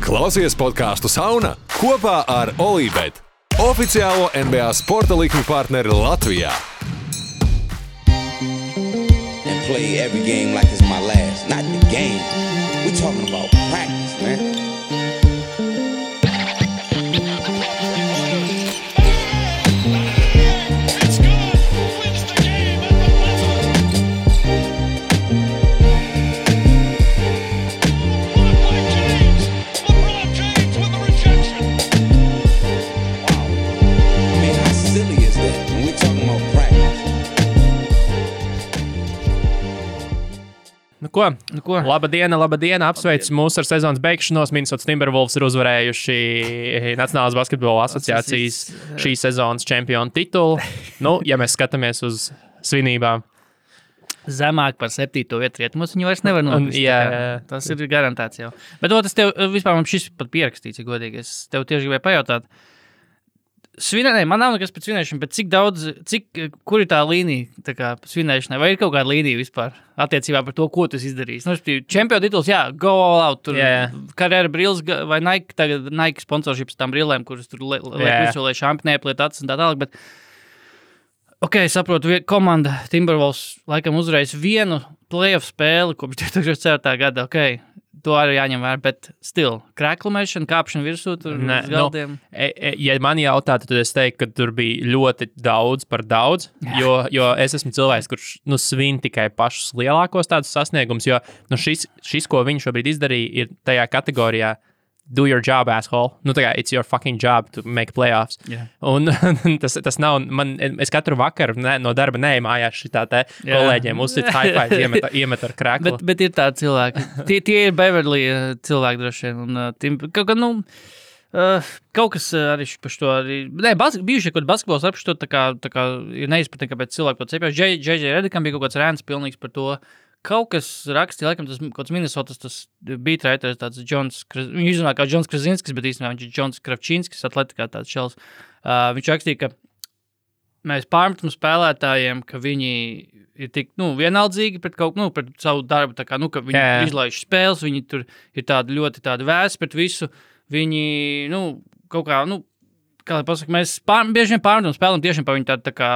Klausies podcastu Sauna kopā ar Olībet, oficiālo NBA sporta likmi partneri Latvijā. And play every game like it's my last. Not the game. We're talking about practice, man. Nu ko? Labadiena, apsveicu mūs ar sezonas beigšanos. Minnesota Timberwolves ir uzvarējuši Nacionālās basketbola asociācijas šīs sezonas čempionu titulu. Nu, ja mēs skatāmies uz svinībām. Zemāk par 7. vietu rietumos viņu vairs nevar nopist. Jā. Tas ir garantēts jau. Bet tas tev, vispār man šis pat pierakstīts, ja godīgi. Es tev tieši gribēju pajautāt. Man nav nekas pēc svinēšana, bet kur ir tā līnija tā kā svinēšanai? Vai ir kaut kāda līnija vispār attiecībā par to, ko tu izdarīsi? Nu, čempionu tituls, jā, go all out. Tur karjera brilles vai Nike, tagad Nike sponsorships tām brillēm, kuras tur liek visu, lai šampi neapliet acis un tā tālāk, bet saprotu, komanda Timberwolves laikam uzvarēs vienu playoff spēli kopš 2004. gada, to arī jāņem vērā, bet krēklumēšana, kāpšana virsū, tur uz galdiem. Ja man jautātu, tad es teiktu, ka tur bija ļoti daudz par daudz, jo es esmu cilvēks, kurš svin tikai pašus lielākos tādus sasniegumus, jo šis, ko viņš šobrīd izdarīja, ir tajā kategorijā do your job, asshole. It's your fucking job to make playoffs. Yeah. Un tas nav, es katru vakaru no darba neeju mājās šitā te kolēģiem uzsit high five, iemet ar krēklu. Bet ir tādi cilvēki. Tie ir Beverly cilvēki droši vien. Kaut kas arī par to arī... bijuši kaut basketbols ar to tā kā ir neizpratni, kāpēc cilvēki to cepjās. J.J. Redikam bija kaut kāds rēns pilnīgs par to. Kaut kas rakstīja, laikam tas kaut kāds Minnesotas, tas beatwriters, tāds viņu izrunā kā Džons Krasinskis, bet īstenībā viņš ir Džons Kravčinskis, atletikā tāds šels. Viņš rakstīja, ka mēs pārmetam spēlētājiem, ka viņi ir tik, vienaldzīgi pret pret savu darbu, tā kā, ka viņi izlaiž spēles, viņi tur ir tādi ļoti tādi vēsi pret visu, viņi, kaut kā, kā lai pasaka, mēs bieži vien pārmetam spēlēm tiešām par viņu tādu tā kā,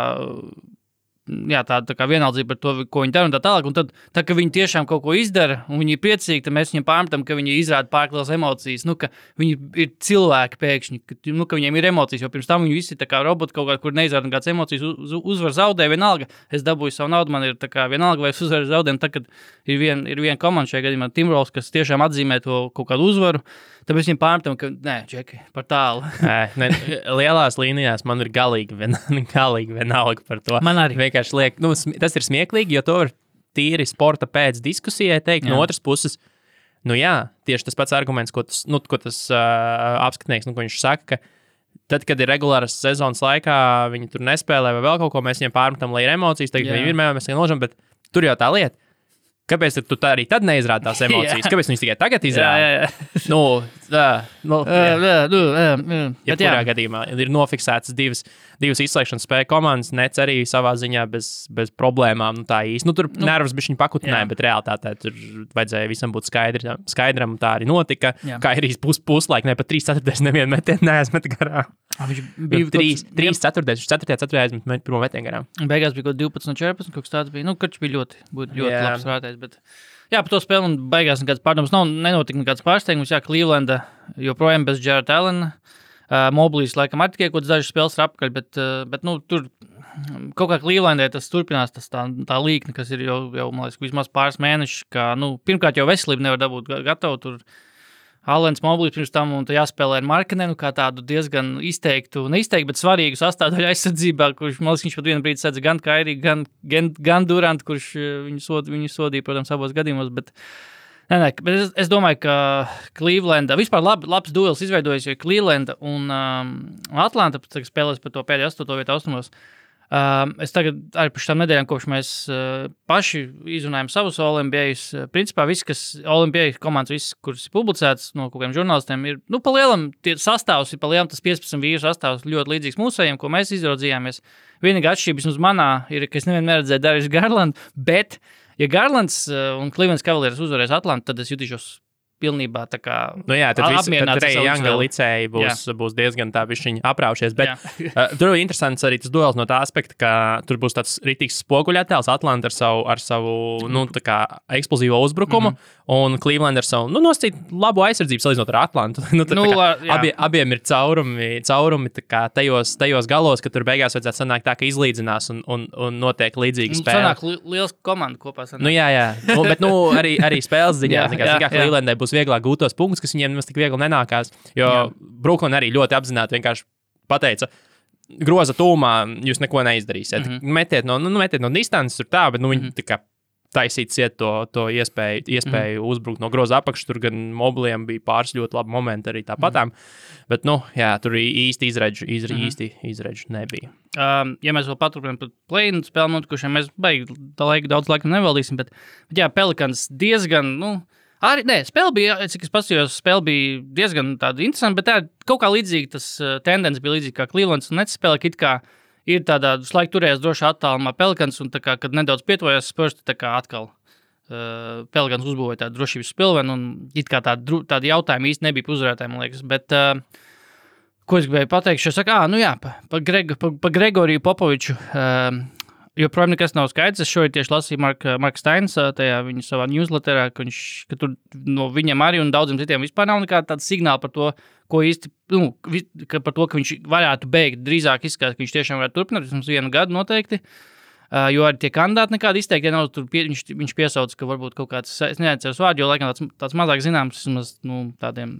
tāda kā vienaldzība par to, ko viņi dara un tā tālāk, un tad, ka viņi tiešām kaut ko izdara, un viņi ir priecīgi, tad mēs viņiem pārmetam, ka viņi izrāda pārklās emocijas, ka viņi ir cilvēki pēkšņi, ka viņiem ir emocijas, jo pirms tam viņi visi tā kā roboti kaut kā, kur neizrāda kāds emocijas, uzvar zaudē, vienalga, es dabūju savu naudu, man ir tā kā vienalga, vai es uzvaru zaudējumu, tad, kad ir viena komanda šajā gadījumā, Timberwolves, kas tiešām atzīmē to kaut kādu uzvaru, tāpēc viņiem pārmetam, ka, Džeki, par tālu. Lielās līnijās man ir galīgi vienalga par to. Man arī. Vienkārši liek, tas ir smieklīgi, jo to var tīri sporta pēc diskusijai teikt. No otras puses, tieši tas pats arguments, ko tas apskatnieks, ko viņš saka, ka tad, kad ir regulāras sezonas laikā, viņi tur nespēlē vai vēl kaut ko, mēs viņiem pārmetam, lai ir emocijas, tagad viņi ir mēs nožam, bet tur jau tā lieta. Kāpēc tu tā arī tad neizrādi tās emocijas? Kāpēc viņas tikai tagad izrāda? Jebkurā gadījumā ir nofiksētas divas izslēgšanas spēju komandas, Nets arī savā ziņā bez problēmām. Tā īsti. Tur nervus bišķiņ pakutināja, bet realitātē tur vajadzēja visam būt skaidram, tā arī notika. Kairijas puslaik, ne pat 3/4 nevienu metienu neaizmet garām. Viņš bija 3/4 aizmet pirmo metienu garām. Beigās bija kaut 12-14, kaut kas tāds bija. Karš bija ļoti labs vērtējs. Bet, par to spēli un beigās nekāds pārdoms nenotika nekāds pārsteigums. Clevelanda joprojām bez Jarrett Allena. Moblīs laikam arī tikai kaut dažas spēles ir apkaļ, bet tur kaut kā Clevelandē tas turpinās, tā līkne, kas ir jau man liekas, vismaz pāris mēneši, ka, pirmkārt jau veselību nevar dabūt gatavu, tur Allens Moblīs pirms tam un jāspēlē ar Markkanenu kā tādu diezgan neizteiktu, bet svarīgu sastāvdaļu aizsardzībā, kurš, man liekas, viņš pat vienu brīdi sedza gan Kairiju, gan Durant, kurš viņu sodīja, protams, abos gadījumos, bet es domāju, ka Clevelanda, vispār labs duels izveidojas, jo Clevelanda un Atlanta spēlēs par to pēdējo 8. vietu austrumos. Es tagad arī par šitām nedēļām, kopš mēs paši izrunājam savus All-NBAs, principā viss, kas All-NBA komandas, viss, kuras ir publicēts no kaut kādiem žurnālistiem, ir, pa lielam, tie sastāvs ir pa lielam, tas 15 vīru sastāvs ļoti līdzīgs mūsējiem, ko mēs izraudzījāmies. Vienīgā atšķirība vismaz manā ir, ka es nevienu neredzēju Darius Garlandu, bet, ja Garlands un Cleveland Cavaliers uzvarēs Atlantu, tad es jutīšos pilnībā tā kā tad Treja Younga licēji būs diezgan tā bišķiņi apraušies, bet tur ir interesants arī tas duels no tā aspekta, ka tur būs tāds ritīgs spoguļattēls, Atlanta ar savu tā kā eksplozīvo uzbrukumu, un Cleveland ar savu, nosacīt labu aizsardzību salīdzinot ar Atlantu. Abiem ir caurumi tā kā tajos galos, ka tur beigās vajadzētu sanākt tā, ka izlīdzinās un notiek līdzīga spēle. Sanāk liels komanda kopā sanāk. Jā. Bet arī spēles ziņā, kā Clevelandai būs vieglāk gūt tos punktus, kas viņiem nemaz tik viegli nenākās, jo Brooklyn arī ļoti apzināti vienkārši pateica, groza tūmā jūs neko neizdarīsiet. Metiet no distances tur tā, bet viņi tā kā taisīt ciet to iespēju uzbrukt no groza apakšas, tur gan mobiliem bija pāris ļoti labi momenti arī tāpatām, bet, tur īsti izredžu nebija. Ja mēs vēl paturpinām par play-in spēli notikušiem, mēs daudz laika nevaldīsim, bet Pelicans diezgan, spēle bija, cik es paskatījos, spēle bija diezgan tāda interesanta, bet tā kaut kā līdzīga, tas tendence bija līdzīga kā Clevelands un Nets spēle, ka it kā ir tādā slaika turējās droši attālumā Pelicans, un tā kā, kad nedaudz pietuvojās Spurs, tā kā atkal Pelicans uzbūvēja tādu drošības spilvenu, un it kā tādi jautājumi īsti nebija uzvarētāji, man liekas, bet ko es gribēju pateikt, es saku, pa Gregoriju Popoviču, joprojām nekas nav skaidrs. Es šodien tieši lasīju Marka Steins, tajā viņa savā newsletterā, ka tur no viņam arī un daudziem citiem vispār nav nekāda tāda signāla par to, ko īsti, par to, ka viņš varētu beigt. Drīzāk izskatās, ka viņš tiešām varētu turpināt, vismaz 1 gadu noteikti. Jo arī tie kandidāti nekādi izteikti, ja nav tur viņš piesauc, ka varbūt kaut kāds, es neatceros vārdu, jo laikam tāds mazāk zināms, vismaz, tādiem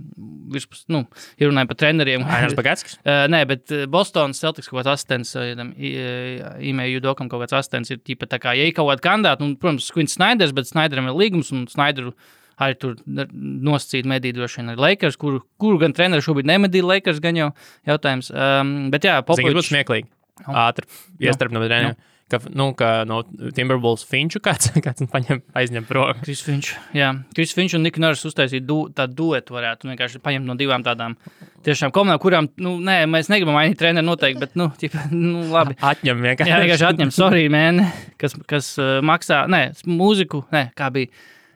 virspus, ja runājam par treneriem. Ainas Bagatskis? Nē, bet Bostonas Celtics kaut kāds asistents, Ime Judokam kaut kāds asistents ir tīpa tā kā, ja ir kaut kādi kandidāti, protams, Quins Snyders, bet Snyderam ir līgums, un Snyderu arī tur nosacīt medī droši vien ar Lakers, kuru gan treneri šobrīd nemedīja Lakers, gan jau jautājums. Bet jā, Popovičs. Zini, būtu smieklīgi. Ātri, iestarp no treniem. Ka no Timberwolves Finču kāds aizņem prom. Chris Finch un Nick Nurse uztaisīt tādu duetu varētu vienkārši paņemt no 2 tādām tiešām komandām, kurām, mēs negribam mainīt treneri noteikti, bet, labi. Atņem vienkārši. Jā, vienkārši atņem, sorry, man, kas maksā, mūziku, kā bija.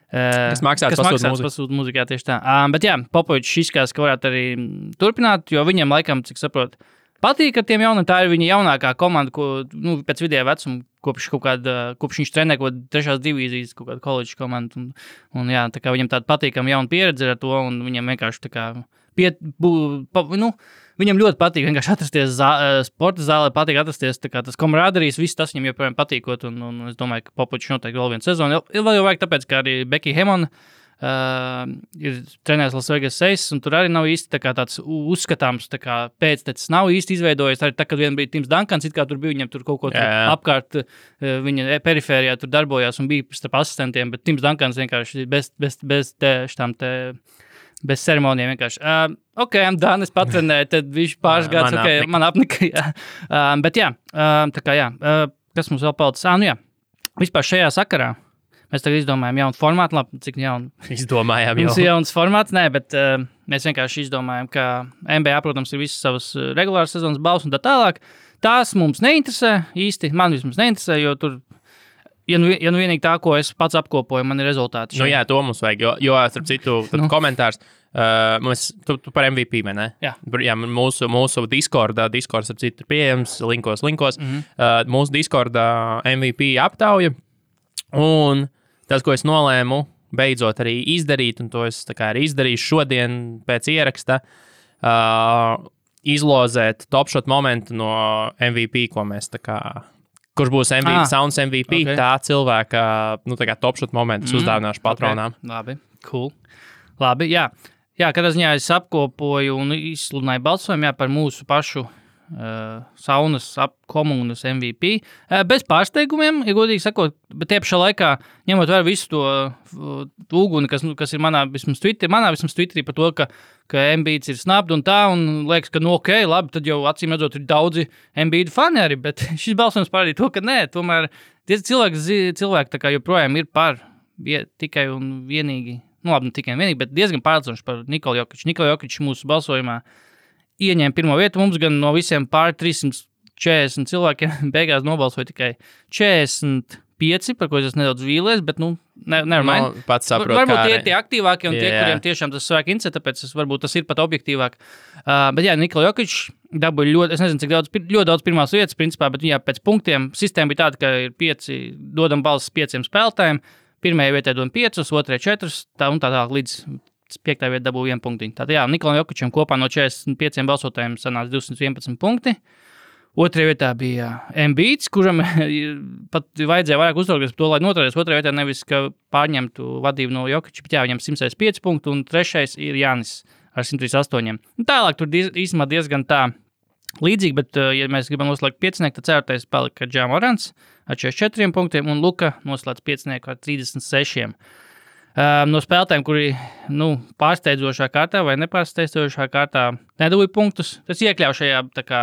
Kas maksās pasūta mūziku, jā, tieši tā. Bet jā, Popovičs izskatās, ka varētu arī turpināt, jo viņam laikam, cik saprotu, patīk ar tiem jauniem, tā ir viņa jaunākā komanda, ko, pēc vidējā vecuma, kopš viņš trenē kaut kādu 3. divīzijas, kaut kādu koledžu komandu, un jā, tā kā viņam tāda patīkama jauna pieredze ar to, un viņam vienkārši tā kā, viņam ļoti patīk vienkārši atrasties sporta zālē, patīk atrasties, tā kā tas komrāderijas, viss tas viņam joprojām patīkot, un es domāju, ka Popovičs noteikti vēl 1 sezonu, vēl jau vajag tāpēc, ka arī Becky Hammond, ir trenējis Las Vegas Aces, un tur arī nav īsti tā kā tāds uzskatāms, tā kā pēctecis nav īsti izveidojies. Arī tā, kad vien bija Tims Duncans, it kā tur bija, viņam tur kaut ko apkārt, viņa perifērijā tur darbojās un bija starp asistentiem, bet Tims Duncans vienkārši bez ceremonijām vienkārši. I'm done, es patrenēju, tad viņš pāris gadus, man apnika, jā. Bet jā, tā kā jā, kas mums vēl palicis? Vispār šajā sakarā. Mēs tagad izdomājām jaunu formātu, labi, cik jaunu. Izdomājām jau. Mums ir jauns formāts, bet mēs vienkārši izdomājām, ka NBA, protams, ir visas savas regulāras sezonas balvas un tā tālāk. Tās mums neinteresē īsti, man vismaz neinteresē, jo tur, ja vienīgi tā, ko es pats apkopoju, man ir rezultāti. Jā, to mums vajag, jo starp citu, komentārs, tu par MVP, vai ne? Jā. Jā, mūsu Discordā, starp citu, ir pieejams, linkos. Mūsu Discordā MVP aptauja, un tas, ko es nolēmu beidzot arī izdarīt, un to es tā kā arī izdarīšu šodien pēc ieraksta, izlozēt topshot momentu no MVP, ko mēs tā kā, kurš būs MVP, Sounds MVP, tā cilvēka, tā kā topshot momentus uzdāvināšu patronām. Okay. Labi, cool. Labi, jā. Jā, kādā ziņā es apkopoju un izsludināju balsojumu, par mūsu pašu saunas komunas MVP. Bez pārsteigumiem, ja godīgi sakot, bet tie pašā laikā, ņemot vērā visu to uguni, kas ir manā vismaz Twitterī par to, ka Embiids ir snabd un tā, un liekas, ka labi, tad jau acīm redzot ir daudzi Embiid fani arī, bet šis balsojums parādīja to, ka nē, tomēr tie cilvēki tā kā joprojām ir par tikai un vienīgi, labi, ne tikai un vienīgi, bet diezgan pārliecinoši par Nikolu Jokiču. Nikola Jokičs mūsu balsojumā ieņēma 1. vietu, mums gan no visiem pār 340 cilvēkiem beigās nobalsoja tikai 45, par ko es nedaudz vīlies, bet, nevar mind. Pats saprotu, Varbūt tie ir tie aktīvākie un tie, Jā. kuriem tiešām tas svēk interesē, tāpēc varbūt tas ir pat objektīvāk. Bet jā, Nikola Jokic dabūja ļoti, es nezinu, cik ļoti daudz pirmās vietas, principā, bet jā, pēc punktiem sistēma bija tāda, ka ir 5, dodam balsis 5 spēlētājiem, pirmajai vietai dodam 5, otrajai 4, tā un tā līdz 5. vietai dabūja 1 punktiņu. Tātad jā, Nikolam Jokicam kopā no 45 balsotājiem sanāca 211 punkti. Otrajā vietā bija Embiids, kuram pat vajadzēja vairāk uztraukties par to, lai noturēties. Otrajā vietā nevis, ka pārņemtu vadību no Jokiča, bet jā, viņam 105 punktu, un trešais ir Jānis ar 138. Tālāk tur īstenībā diezgan tā līdzīgi, bet, ja mēs gribam noslēgt 5, tad 4. palika Ja Morants ar 44 punktiem, un Luka noslēdz 5 ar 36. No spēlētājiem, kuri pārsteidzošā kārtā vai nepārsteidzošā kārtā nedabūja punktus, tas iekļauj šajā tā kā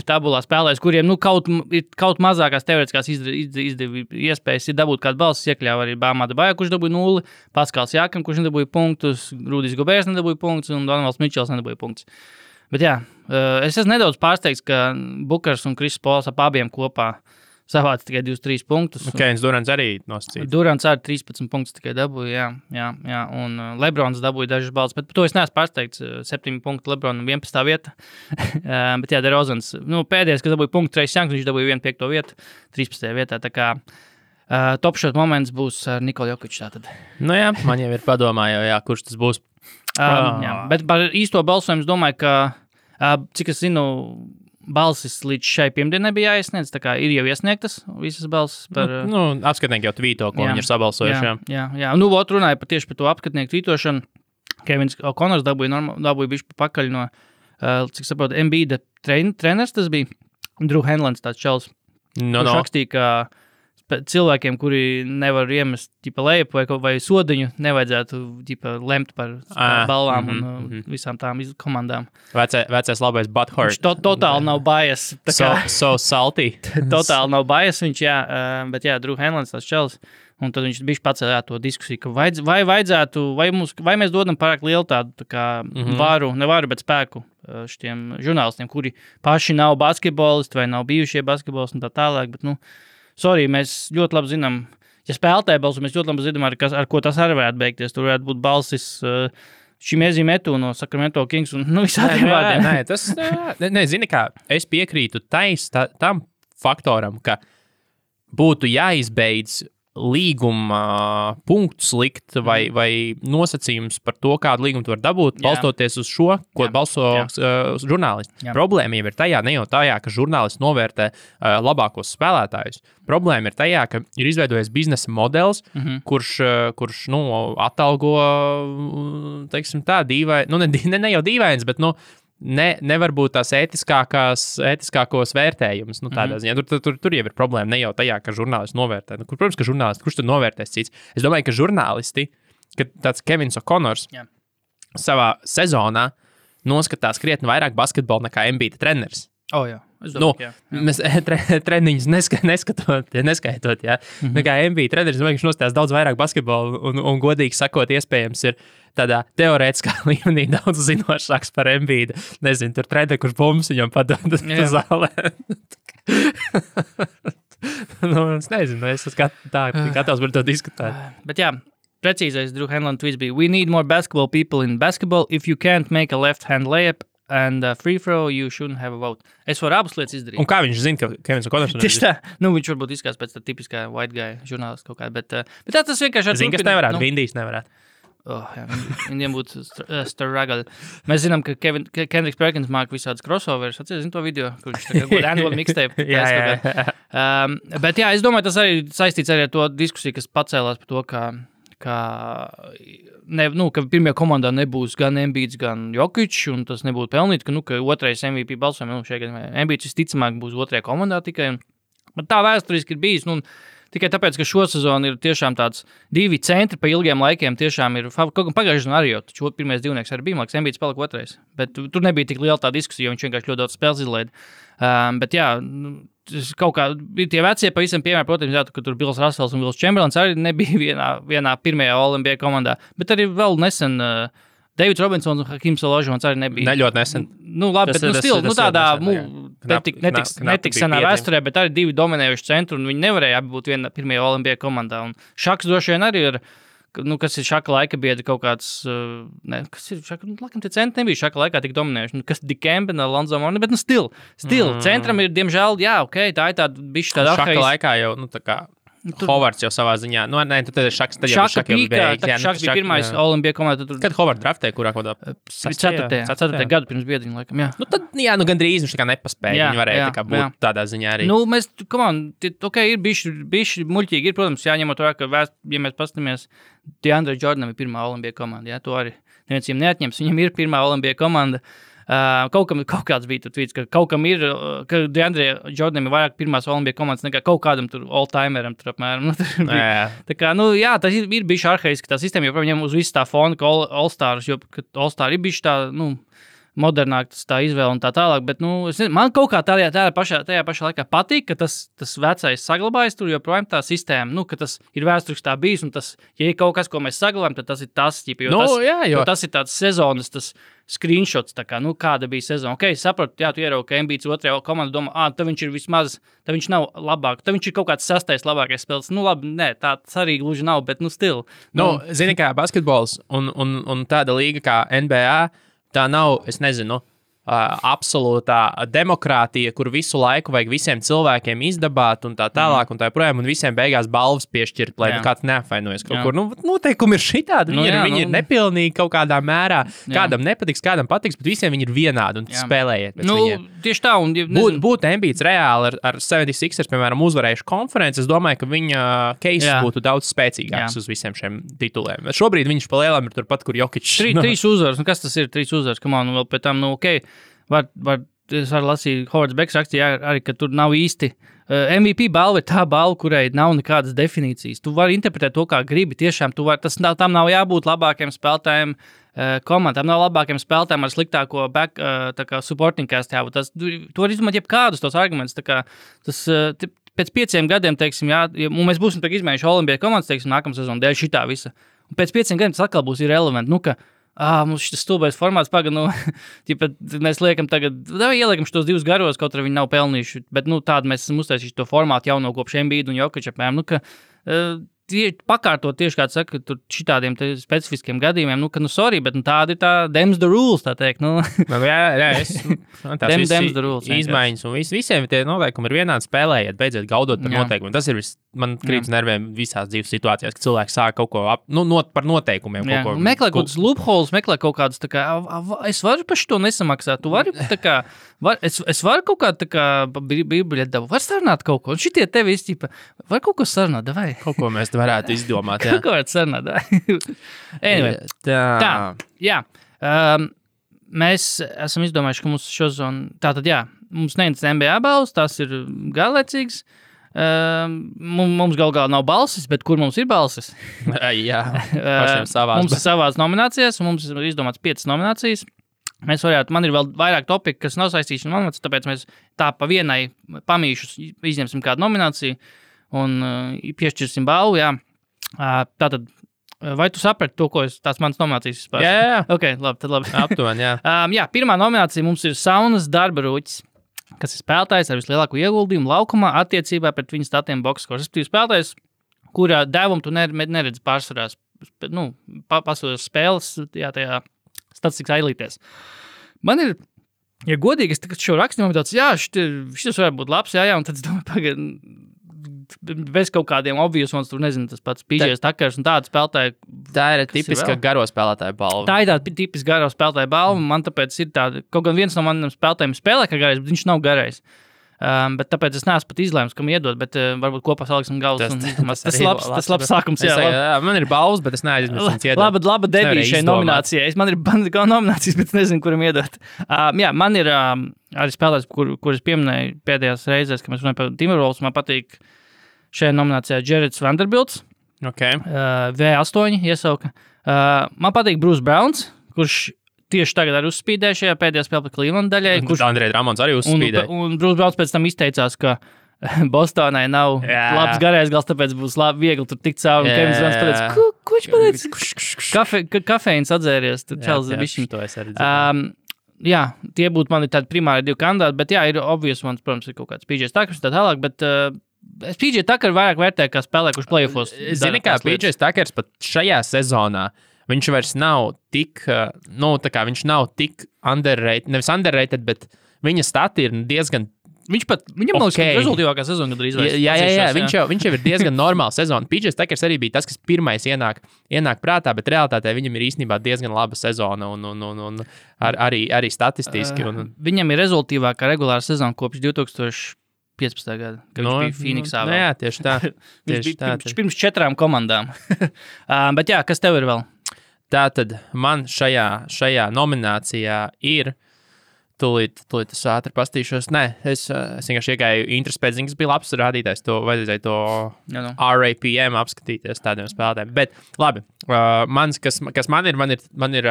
tabulā spēlēs, kuriem kaut mazākās teorētiskās iespējas ir dabūt kādu balsis, iekļauj arī Bāmā Debaja, kurš dabūja 0, Paskals Jākam, kurš nedabūja punktus, Rudijs Gobērs nedabūja punktus un Donovals Mičels nedabūja punktus. Bet jā, es esmu nedaudz pārsteigts, ka Bukers un Kris Pols ap abiem kopā savāca tikai 23 punktus. Kevins Durants arī nosacīja. Durants arī 13 punktus tikai dabūja, jā. Un Lebrons dabūja dažas balvas, bet par to es neesmu pārsteigts. 7 punktu Lebronam 11. vieta. Bet jā, DeRozans, pēdējais, kas dabūja punktu, Trace Youngs, viņš dabūja 1/5 vietu, 13. vietā. Tā kā top shot moments būs ar Nikolu Jokiču tātad. Nu jā, man jau ir padomā, kurš tas būs. Jā, bet par īsto balsojumu es domāju, ka, cik es zinu, balsis līdz šai pirmdienai bija jāiesniedz, tā kā ir jau iesniegtas visas balsis par... Apskatnieki jau tvīto, ko viņi ir sabalsojuši. Jā. Runāja tieši par to apskatnieku tvītošanu. Kevins O'Connors dabūja bišķi pakaļ no, cik saprotu, Embiida treneris tas bija. Drew Hanlons tāds čels. Kurš rakstīja, ka cilvēkiem, kuri nevar iemest lejap vai sodiņu, nevajadzētu lemt par balvām un visām tām komandām. Vecais labais butthurt. Viņš totāli nav bias. So salty. Totāli nav bias viņš, jā. Bet jā, Drew Hanlons tāds čels. Un tad viņš bišķi pacēlā to diskusiju, ka vai vajadzētu, vai mēs dodam pārāk lielu tādu tā kā nevaru, bet spēku šitiem žurnālistiem, kuri paši nav basketbolisti vai nav bijušie basketbolisti un tā tālāk, bet, sorry, mēs ļoti labi zinām, ja spēlētāji balsu, mēs ļoti labi zinām, ar ko tas arī varētu beigties. Tur varētu būt balsis šim Ezīmetu no Sacramento Kings un visādiem vārdiem. Nē, tas, zini kā, es piekrītu tam faktoram, ka būtu jāizbeidz līguma punktus likt vai nosacījums par to, kādu līgumu tu var dabūt, balstoties uz šo, ko balso žurnālisti. Jā. Problēma jau ir tajā, ne jau tajā, ka žurnālisti novērtē labākos spēlētājus. Problēma ir tajā, ka ir izveidojies biznesa modelis, kurš atalgo, teiksim tā, dīvaini, ne jau dīvains, bet, nevar būt tās ētiskākos vērtējumus. Tādā ziņā. Tur jau ir problēma. Ne jau tajā, ka žurnālisti novērtē. Protams, ka žurnālisti, kurš tad novērtēs cits? Es domāju, ka žurnālisti, kad tāds Kevins O'Connors savā sezonā noskatās krietni vairāk basketbolu nekā Embiida treneris. Jā. Es domāju, mēs treniņus neskaitot, jā. Nekā Embiida treneris, viņš nostājās daudz vairāk basketbolu un godīgi sakot, iespējams ir tādā teorētiskā līmenī daudz zinošāks par Embiida. Nezinu, tur treneri, kurš bumbas viņam padod zālē. Es nezinu, es esmu gatavs par to diskutēt. Bet jā, precīzais Drew Hanlon tweets bija: "We need more basketball people in basketball. If you can't make a left-hand layup and free throw, you shouldn't have a vote." Es varu abas lietas izdarīt. Un kā viņš zina, ka Kevins O'Connors ir? Tieši tā. Viņš varbūt izskatās pēc tā tipiskā white guy žurnālists kaut kādā, bet tas vienkārši... Zini, kas nevarētu, Vindijs nevarētu. Viņiem būtu struggle. Mēs zinām, ka Kendricks Perkins māk visādas crossovers. Atceries to video, kur viņš tagad būtu annual mixtape. Bet jā, es domāju, tas arī saistīts arī ar to diskusiju, kas pacēlās par to, ka pirmajā komandā nebūs gan Embiids, gan Jokic, un tas nebūtu pelnīt, ka otrais MVP balsojums, Embiids visticamāk būs otrajā komandā tikai. Bet tā vēsturiski ir bijis, tikai tāpēc, ka šo sezonu ir tiešām tāds 2 centri pa ilgiem laikiem tiešām ir, kaut kā pagājušajā sezonā arī jau, taču pirmais divnieks arī bija, māks, Embiids palika otrais, bet tur nebija tik liela tā diskusija, jo viņš vienkārši ļoti daudz spēles izlaida. Bet jā, kaut kā tie vecie pavisam piemēri, protams, jā, ka tur Bills Russells un Wills Chamberlains arī nebija vienā pirmajā All-NBA komandā, bet arī vēl nesen Davids Robinsons un Hakims Olajuwons arī nebija. Ļoti nesen. Nu, labi, bet tādā netiks senā biedri. vēsturē, bet arī divi dominējuši centru, un viņi nevarēja abi būt viena pirmajā Olimpijā komandā. Un Šaks droši vien arī ir, kas ir Šaka laika biedri kaut kāds, kas ir Šaka, laikam tie centri nebija Šaka laikā tik dominējuši. Kas Dikembe, Lonzo Mourning, bet stil. Centram ir, diemžēl, jā, tā ir tāda bišķi tāda Šaka laikā jau, tā kā Hovards jau savā ziņā. Tad ir Šaks, tad jau Šaka bija pirmais Olimpija komandā. Kad Hovards draftēja, kurā kodā? 4. gadu pirms biedriņa, laikam, jā. Tad, gandrīz viņš tā kā nepaspēja. Viņi varēja tā kā būt tādā ziņā arī. Mēs, ir bišķi muļķīgi. Ir, protams, jāņemot vērā, ka, ja mēs pastamies, DeAndre Jordanam ir pirmā Olimpija komanda, jā, to arī neviens viņam neatņems. Viņam ir pirmā Olimpija komanda. Kaut kāds bija tur tvīts, ka kaut kam ir, ka DeAndre Jordanam ir vairāk pirmās Olimpija komandas nekā kaut kādam tur all-timeram tur apmēram. Tā kā, tas ir bijuši arhaiski tā sistēma, jo viņam uz visu tā fona, ka All-Stars, jo All-Star ir bijuši tā, modernāk tā izvēle un tā tālāk, bet, man kaut kā tajā pašā laikā patīk, ka tas vecais saglabājas tur, joprojām tā sistēma, ka tas ir vēsturiski tā bijis, un tas, ja ir kaut kas, ko mēs saglabājam, tad tas ir tas, jo tas ir tāds sezonas, tas screenshots, tā kā, kāda bija sezona. Ok, sapratu, jā, tu ieraugi, ka Embiids otrajā komandā domā, tad viņš ir vismaz, tad viņš nav labāk, tad viņš ir kaut kāds 6. labākais spēlētājs. Labi, nē, tāds arī gluži nav, bet, still. Zini, kā basketbols un tāda līga kā NBA, tā nav, es nezinu, absolūtā demokrātija, kur visu laiku vajag visiem cilvēkiem izdabāt un tā tālāk un tā projām, un visiem beigās balvas piešķirt, lai kāds neapvainojas kaut kur. Noteikumi ir šitādi, viņi ir nepilnīgi kaut kādā mērā. Kādam nepatiks, kādam patiks, bet visiem viņi ir vienādi un spēlējiet pēc viņiem. Tieši tā. Būtu Embiids reāli ar 76ers, piemēram, uzvarējuši konferenci, es domāju, ka viņa case būtu daudz spēcīgāks uz visiem šiem tituliem. Šobrīd viņš pa lielām ir turpat, kur Jokic. 3 uzvaras, kas tas ir 3 uzvaras, vēl pēc tam, es varu lasīt, Hovards Beks rakstīja arī, ka tur nav īsti. MVP balva ir tā balva, kurai nav nekādas definīcijas. Tu vari interpretēt to, kā gribi. Tiešām, tam nav jābūt labākiem spēlētājiem komandām, nav labākiem spēlētājiem ar sliktāko supporting cast jābūt. Tu vari izmantot jebkādus tos argumentus. Pēc 5 gadiem, teiksim, un mēs būsim izmēģinājuši Olimpija komandas, teiksim, nākamā sezona dēļ šitā visa. Un pēc 5 gadiem tas atkal būs irrelevant. Mums šis stulbais formāts mēs liekam tagad, ieliekam šos 2 garos, kaut arī viņi nav pelnījuši, bet, tādu mēs esam uztaisījuši to formātu jauno kopš Embiida un Jokiča, pakārtot tieši, kā saka, tur šitādiem specifiskiem gadījumiem, sorry, bet tāda ir tā dems the rules, tā teikt, dems the rules. Izmaiņas un visiem tie noteikumi ir vienādi, spēlējiet, beidziet gaudot par noteikumiem. Tas ir man krīt nerviem visās dzīves situācijās, ka cilvēki sāk kaut ko par noteikumiem. Meklē kaut kādus loopholes, meklē kaut kādus, es varu par šo nesamaksāt, tu vari, es varu kaut kādu, biļeti dabu, var sarunāt kaut ko, un šitie tevi izķipa, var kaut ko sarunāt, davai. Kaut ko mēs varētu izdomāt, jā. Kaut ko varētu sarunāt, davai. Anyway, tā, jā. Mēs esam izdomājuši, ka mums šo zonu, tātad, jā, mums neinteresē NBA balvas, tās ir garlaicīgas. Mums galā nav balsis, bet kur mums ir balsis? Jā, pašiem savās. Mums ir savās nominācijās, un mums ir izdomāts 5 nominācijas. Man ir vēl vairāk topiki, kas nav saistīti ar nomināciju, tāpēc mēs tā pa vienai pamīšus izņemsim kādu nomināciju un piešķirsim balvu, jā. Tātad, vai tu saprati to, ko tās manas nominācijas vispār? Jā. Ok, labi, tad labi. Aptuveni, jā. Jā, pirmā nominācija mums ir Saunas darba rūķis, kas ir spēlētājs ar vislielāko ieguldījumu laukumā attiecībā pret viņu statiem boxskors. Tas ir spēlētājs, kurā devumu tu neredzi pārsvarās, pasaules spēles, jā, tajā statistikas ailītēs. Man ir, ja godīgi, es šo rakstu nomināciju, jā, šis varētu būt labs, jā, un tad es domāju, bez kaut kādiem obvious ones, tur nezinu, tas pats PJs Takers un tāda spēlētāja. Tā ir tipiska garo spēlētāja balva. Tā ir tāda tipiska garo spēlētāja balva, man tāpēc ir tāda, kaut gan viens no maniem spēlētājiem spēlē kā garais, bet viņš nav garais. Bet tāpēc es neesmu pat izlēms, kam iedot, bet varbūt kopā saliksim galvas. Tas labs sākums, jā. Man ir balvas, bet es neaizmirstu viņus iedot. Laba debija šai nominācijai. Man ir nominācijas, bet es nezinu, kuram iedot. Jā, man ir arī spēlētājs, kur es pieminēju pēdējās reizēs, kad mēs runājam par Timberwolves, man patīk šajā nominācijā Jareds Vanderbilts. Okay. V8 iesauka. Man patīk Bruce Browns, kurš tieši tagad arī uzspīdēja šajā pēdējā spēlē par Cleveland daļai. Andrejs Ramons arī uzspīdēja. Un Bruce Browns pēc tam izteicās, ka Bostonai nav labs garais gals, tāpēc būs viegli tur tikt cauri. Un Kevins Durants pateica, ko viņš pateica? Kafeīns atzēries, tad čels bišķiņ. To es arī dzirdēju. Jā, tie būtu mani tādi primāri 2 kandidāti, bet jā, ir obvious ones, protams, ir kaut kāds PJ Tuckers tā tālāk, bet es PJ Tucker vairāk vērtēju kā spēlē, kurš playoffos. Zini, kā PJ Tuckers pat šajā sezonā, viņš vairs nav tik, viņš nav tik underrated, nevis underrated, bet viņa stati ir diezgan Viņam liekas, ka rezultīvākā sezona drīz vairs. Jā, viņš jau ir diezgan normāla sezona. PJ Tuckers arī bija tas, kas pirmais ienāk prātā, bet realitātē viņam ir īstenībā diezgan laba sezona un arī statistiski. Viņam ir rezultīvākā regulāra sezona kopš 2015. gada, kad viņš bija Phoenixā. Jā, tieši tā. Viņš pirms 4 komandām. Bet jā, kas tev ir vēl? Tātad man šajā nominācijā ir Tūlīt es ātri pastīšos. Nē, es vienkārši iegāju interesi pēc ziņas, bija labs rādītājs, vajadzēja to RAPM apskatīties tādiem spēlētājiem. Bet labi, kas man ir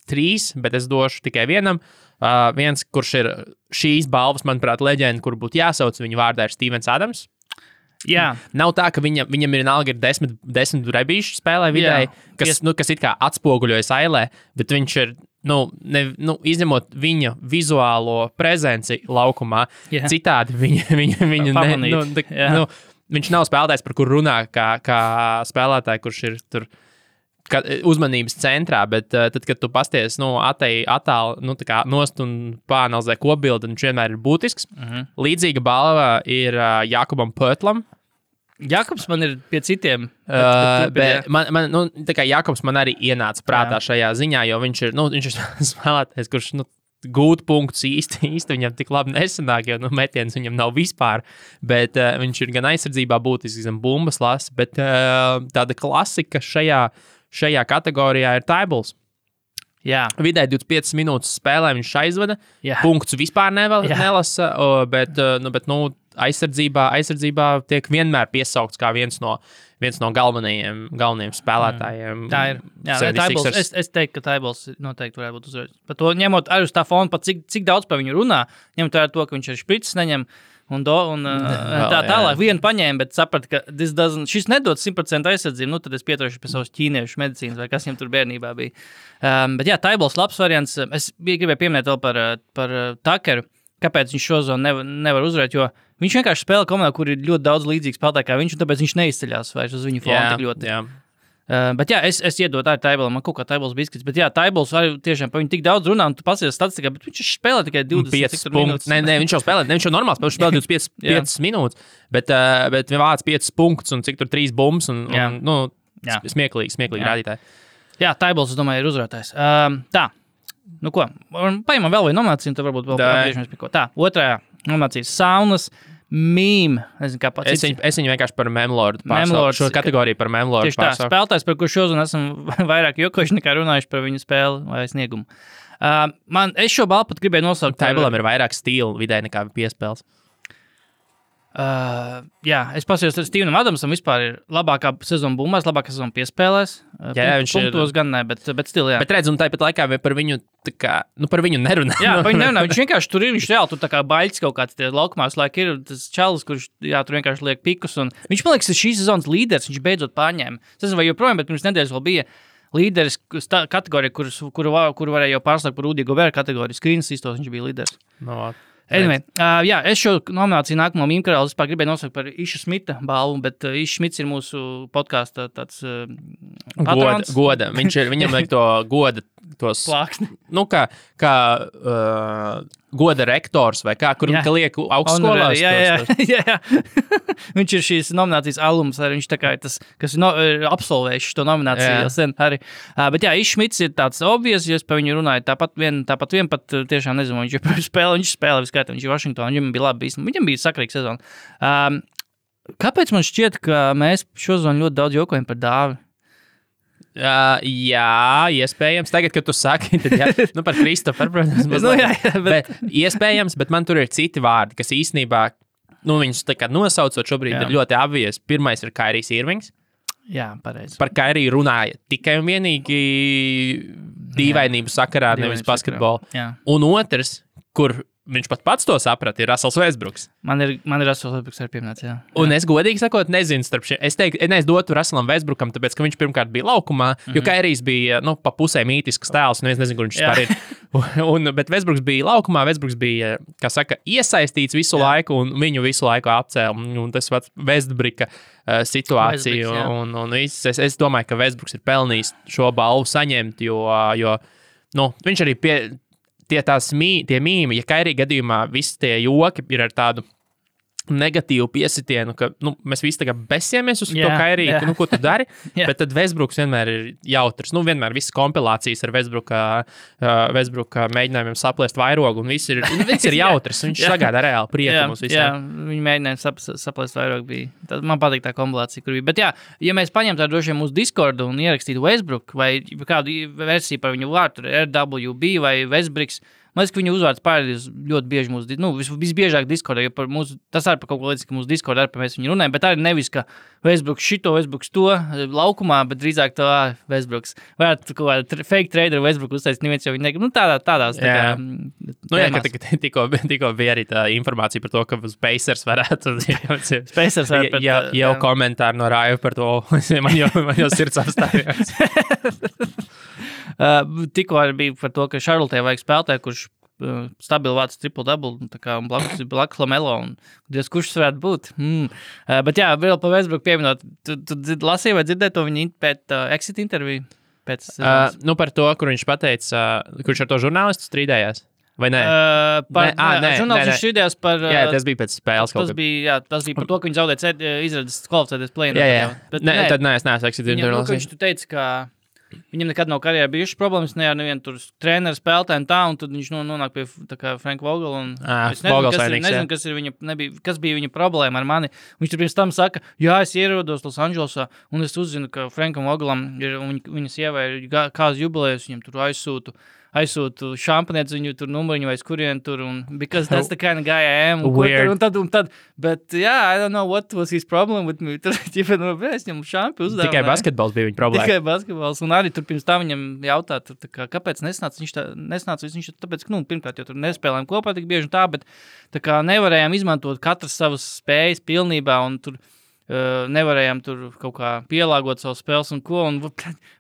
3, bet es došu tikai vienam. Viens, kurš ir šīs balvas, manuprāt, leģenda, kur būtu jāsauc, viņa vārdā ir Stevens Adams. Jā. Nav tā, ka viņam vienalga ir 10 rebīšu spēlē vidēji, kas it kā atspoguļojas ailē, bet viņš ir izņemot viņa vizuālo prezenci laukumā, citādi viņš nav spēlētājs, par kur runā kā spēlētāji, kurš ir tur uzmanības centrā, bet tad, kad tu pasties attāli nost un pāanalizē kopbildi, viņš vienmēr ir būtisks. Līdzīga balva ir Jakubam Pötlam. Jakobs man ir pie citiem. Bet Jakobs man arī ienāca prātā šajā ziņā, jo viņš ir spēlētājs, kurš gūt punktus īsti viņam tik labi nesanāk, jo metiens viņam nav vispār, bet viņš ir gan aizsardzībā būtisks, gan bumbas lasa, bet tāda klasika šajā kategorijā ir Tybals. Jā. Vidēji 25 minūtes spēlē viņš aizvada, punktus vispār nelasa, bet aizsardzībā tiek vienmēr piesaukts kā viens no galvenajiem spēlētājiem. Tā ir. Jā, Tybals, es teiktu, ka Tybals noteikti varētu būt uzvarētājs. Par to ņemot arī uz tā fona, pat cik daudz par viņu runā, ņemot vērā to, ka viņš arī špricis neņem un tā tālāk vienu paņēma, bet sapratu, ka šis nedod 100% aizsardzību, tad es pieturēšu pie savas ķīniešu medicīnas vai kas viņam tur bērnībā bija. Bet jā, Tybals labs variants. Es gribēju pieminēt vēl par Tuckeru, kāpēc viņš šo zonu nevar uzvarēt, jo viņš vienkārši spēlē komandā, kur ir ļoti daudz līdzīgu spēlētāju kā viņš, un tāpēc viņš neizceļās vairs uz viņu fonu tik ļoti. Jā. Bet jā, es iedotu arī Tybalam, man kaut kā Tybals biskits, bet jā, Tybals arī tiešām par viņu tik daudz runā, un tu pasies statistikā, bet viņš spēlē tikai 25 minūtes. Nē, viņš jau spēlē, viņš jau normāli spēlē, viņš spēlē 25 minūtes, bet viņš vāc 5 punktus un cik tur 3 bumbas un smieklīgi rādītāji. Jā, Tybals, es domāju, ir uzvarētājs. Tā, ko, paimam vēl vai nomināciju, un tad varbūt vēl atgriežamies pie ko. Tā, otrajā nominācijas saunas. Mīm, nezinu, kā pats. Es viņu vienkārši par Memlordu pārstāvu. Šo kategoriju par Memlordu pārstāvu. Tieši tā, spēlētājs, par kur šodien esam vairāk jokojuši nekā runājuši par viņu spēli vai sniegumu. Es šo balvu pat gribēju nosaukt. Tybalam ir vairāk stilu vidē nekā piespēles. Jā, es pasījos ar Stevenam Adamsam, vispār ir labākā sezona bumbās, labākā sezona piespēlēs. Viņš punktos gan ne, bet still, jā. Bet redz, un tāpat laikā par viņu, par viņu nerunā. Jā, par viņu nerunā. Viņš vienkārši tur ir, viņš reāli tur tā kā baļķis kaut kāds tie laukumā, laik ir tas čalis, kurš, tur vienkārši liek pikus. Un viņš, man liekas, ir šīs sezonas līderis, viņš beidzot pārņēma. Es nezinu, vai joprojām, bet pirms nedēļas vēl bija līderis kategorija, kuru varēja jau pārslēgt par Rudy Gobert kategoriju. Screens īstos, viņš bija līderis. Anyway, jā, es šo nomināciju nākamo mīmkarālu vispār gribēju nosaukt par Iša Smita balvu, bet Išs Smits ir mūsu podkāsta tāds patrons. Goda. Viņam vajag to goda, tos plāksni. Kā goda rektors vai kā, kur liek augstskolās. Jā. Viņš ir šīs nominācijas alums, arī viņš tā kā ir tas, kas ir absolvējis šo nomināciju jau sen arī. Bet jā, Išs Smits ir tāds obvious, jo es par viņu runāju tāpat vien pat tiešām nezinu, viņš spēlē viskaitā, viņš ir Washingtonā, viņam bija labi bijis, viņam bija sakrīga sezona. Kāpēc man šķiet, ka mēs šo zonu ļoti daudz jokojam par Dāvi? Jā, iespējams. Tagad, kad tu saki, tad par Kristoferu, protams. Bet iespējams, bet man tur ir citi vārdi, kas īstenībā, viņus tā kā nosaucot šobrīd ir ļoti obvious. Pirmais ir Kairijs Irvings. Jā, pareizi. Par Kairiju runāja tikai un vienīgi dīvainību sakarā, nevis basketbolu. Un otrs, kur viņš pats to saprata, ir Russells Westbrooks. Man ir Russells Westbrooks arī pieminēts, jā. Un es godīgi sakot, nezinu starp šiem. Es teiktu, es dotu Russellam Westbrookam, tāpēc, ka viņš pirmkārt bija laukumā, jo Kairijs bija, pa pusē mītisks tēls, un es nezinu, kur viņš vispār ir. Bet Westbrooks bija laukumā, Westbrooks bija, kā saka, iesaistīts visu laiku, un viņu visu laiku apcēla. Un tas pats Westbrooka situācija. Un es domāju, ka Westbrooks ir pelnījis šo balvu saņemt, jo viņš arī tie mīmi, ja Kairī gadījumā visi tie joki ir ar tādu negatīvu piesitienu, ka mēs visi tagad besimies uz to Kairī, ko tu dari, bet tad Westbrooks vienmēr ir jautrs. Vienmēr visas kompilācijas ar Westbrooka mēģinājumiem saplēst vairogu, un viss ir jautrs. Viņš sagādā reāli prieku mums visiem. Jā, viņi mēģināja saplēst vairogu bija. Tad man patīk tā kompilācija, kur bija. Bet jā, ja mēs paņemtu tādu droši vien mūsu Discordu un ierakstītu Westbrook vai kādu versiju par viņu vārtu, RWB vai Westbrooks, man liekas, ka viņu uzvārds pārādījis ļoti bieži mūsu, visbiežāk Discordā, jo tas arī par kaut ko līdz, ka mūsu Discordā arī par mēs viņu runājam, bet arī nevis, ka Westbrooks šito, Westbrooks to laukumā, bet drīzāk to Westbrooks. Varētu kaut kādā fake trader Westbrook uztaisīt, neviens jau viņi negrib. Tādās. Ka tikko bija arī tā informācija par to, ka uz Pacers varētu. Pacers varētu. Jau komentāri no Raiva par to, man jau sirds apstājās. Tikko arī bija par to, ka Charlotē vajag spēlētāju, kurš stabili vāc triple-double, un blakus Lamelo, un Dievs, kurš tas varētu būt. Bet jā, vēl par Westbrook pieminot, tu lasīji vai dzirdēji to viņa pēc exit interviju? Par to, kur viņš pateica, kurš ar to žurnālistu strīdējās? Vai nē? Žurnālists strīdējās par... Jā, tas bija pēc spēles kaut kā. Tas bija par to, ka viņš zaudēja izredzes kvalificēties play-in. Jā. Tad nē, es neesmu exit interviju. Viņš tu teica, ka viņam nekad nav karjerā bijušas problēmas, nevienu tur treneru spēlētāju un tā, un tad viņš nonāk pie Franka Vogela. Es nezinu, kas bija viņa problēma ar mani. Viņš tur pirms tam saka, jā, es ierodos Los Andželosā, un es uzzinu, ka Frankam Vogelam ir, viņa sievai ir kāzu jubilejas, viņam tur aizsūtu šampanietis viņu tur numuriņu vai skurien tur, un because that's the kind of guy I am. Un tad, bet I don't know what was his problem with me. Tur, es viņam šampi uzdāvināju. Tikai basketbols bija viņa problēma. Tikai basketbols, un arī tur pirms tā viņam jautā, kāpēc nesnāca viņš tāpēc, ka, pirmkārt, jo tur nespēlējām kopā tik bieži un tā, bet tā kā nevarējām izmantot katras savas spējas pilnībā, un tur nevarējām tur kaut kā pielāgot savu spēles un ko, un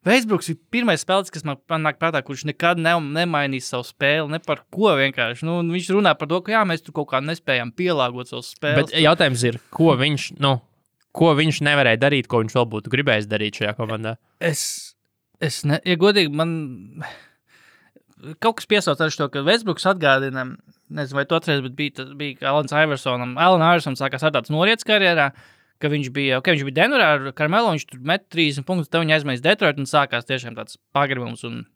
Westbrooks ir pirmais spēlētājs, kas man nāk prātā, kurš nekad nemainīs savu spēli, ne par ko vienkārši, viņš runā par to, ka jā, mēs tur kaut kā nespējām pielāgot savu spēles. Bet jautājums ir, ko viņš nevarēja darīt, ko viņš vēl būtu gribējis darīt šajā komandā? Ja godīgi, man kaut kas piesauc ar šo, ka Westbrooks atgādina, nezinu, vai tu atceries, bet bija Alans Iversonam. Alan Iverson sākās ar tāds norietas karjerā, ka viņš bija Denverā ar Carmelo, viņš tur met 30 punktus, tad viņi aizmēs Detroit un sākās tiešām tāds pagribums. Un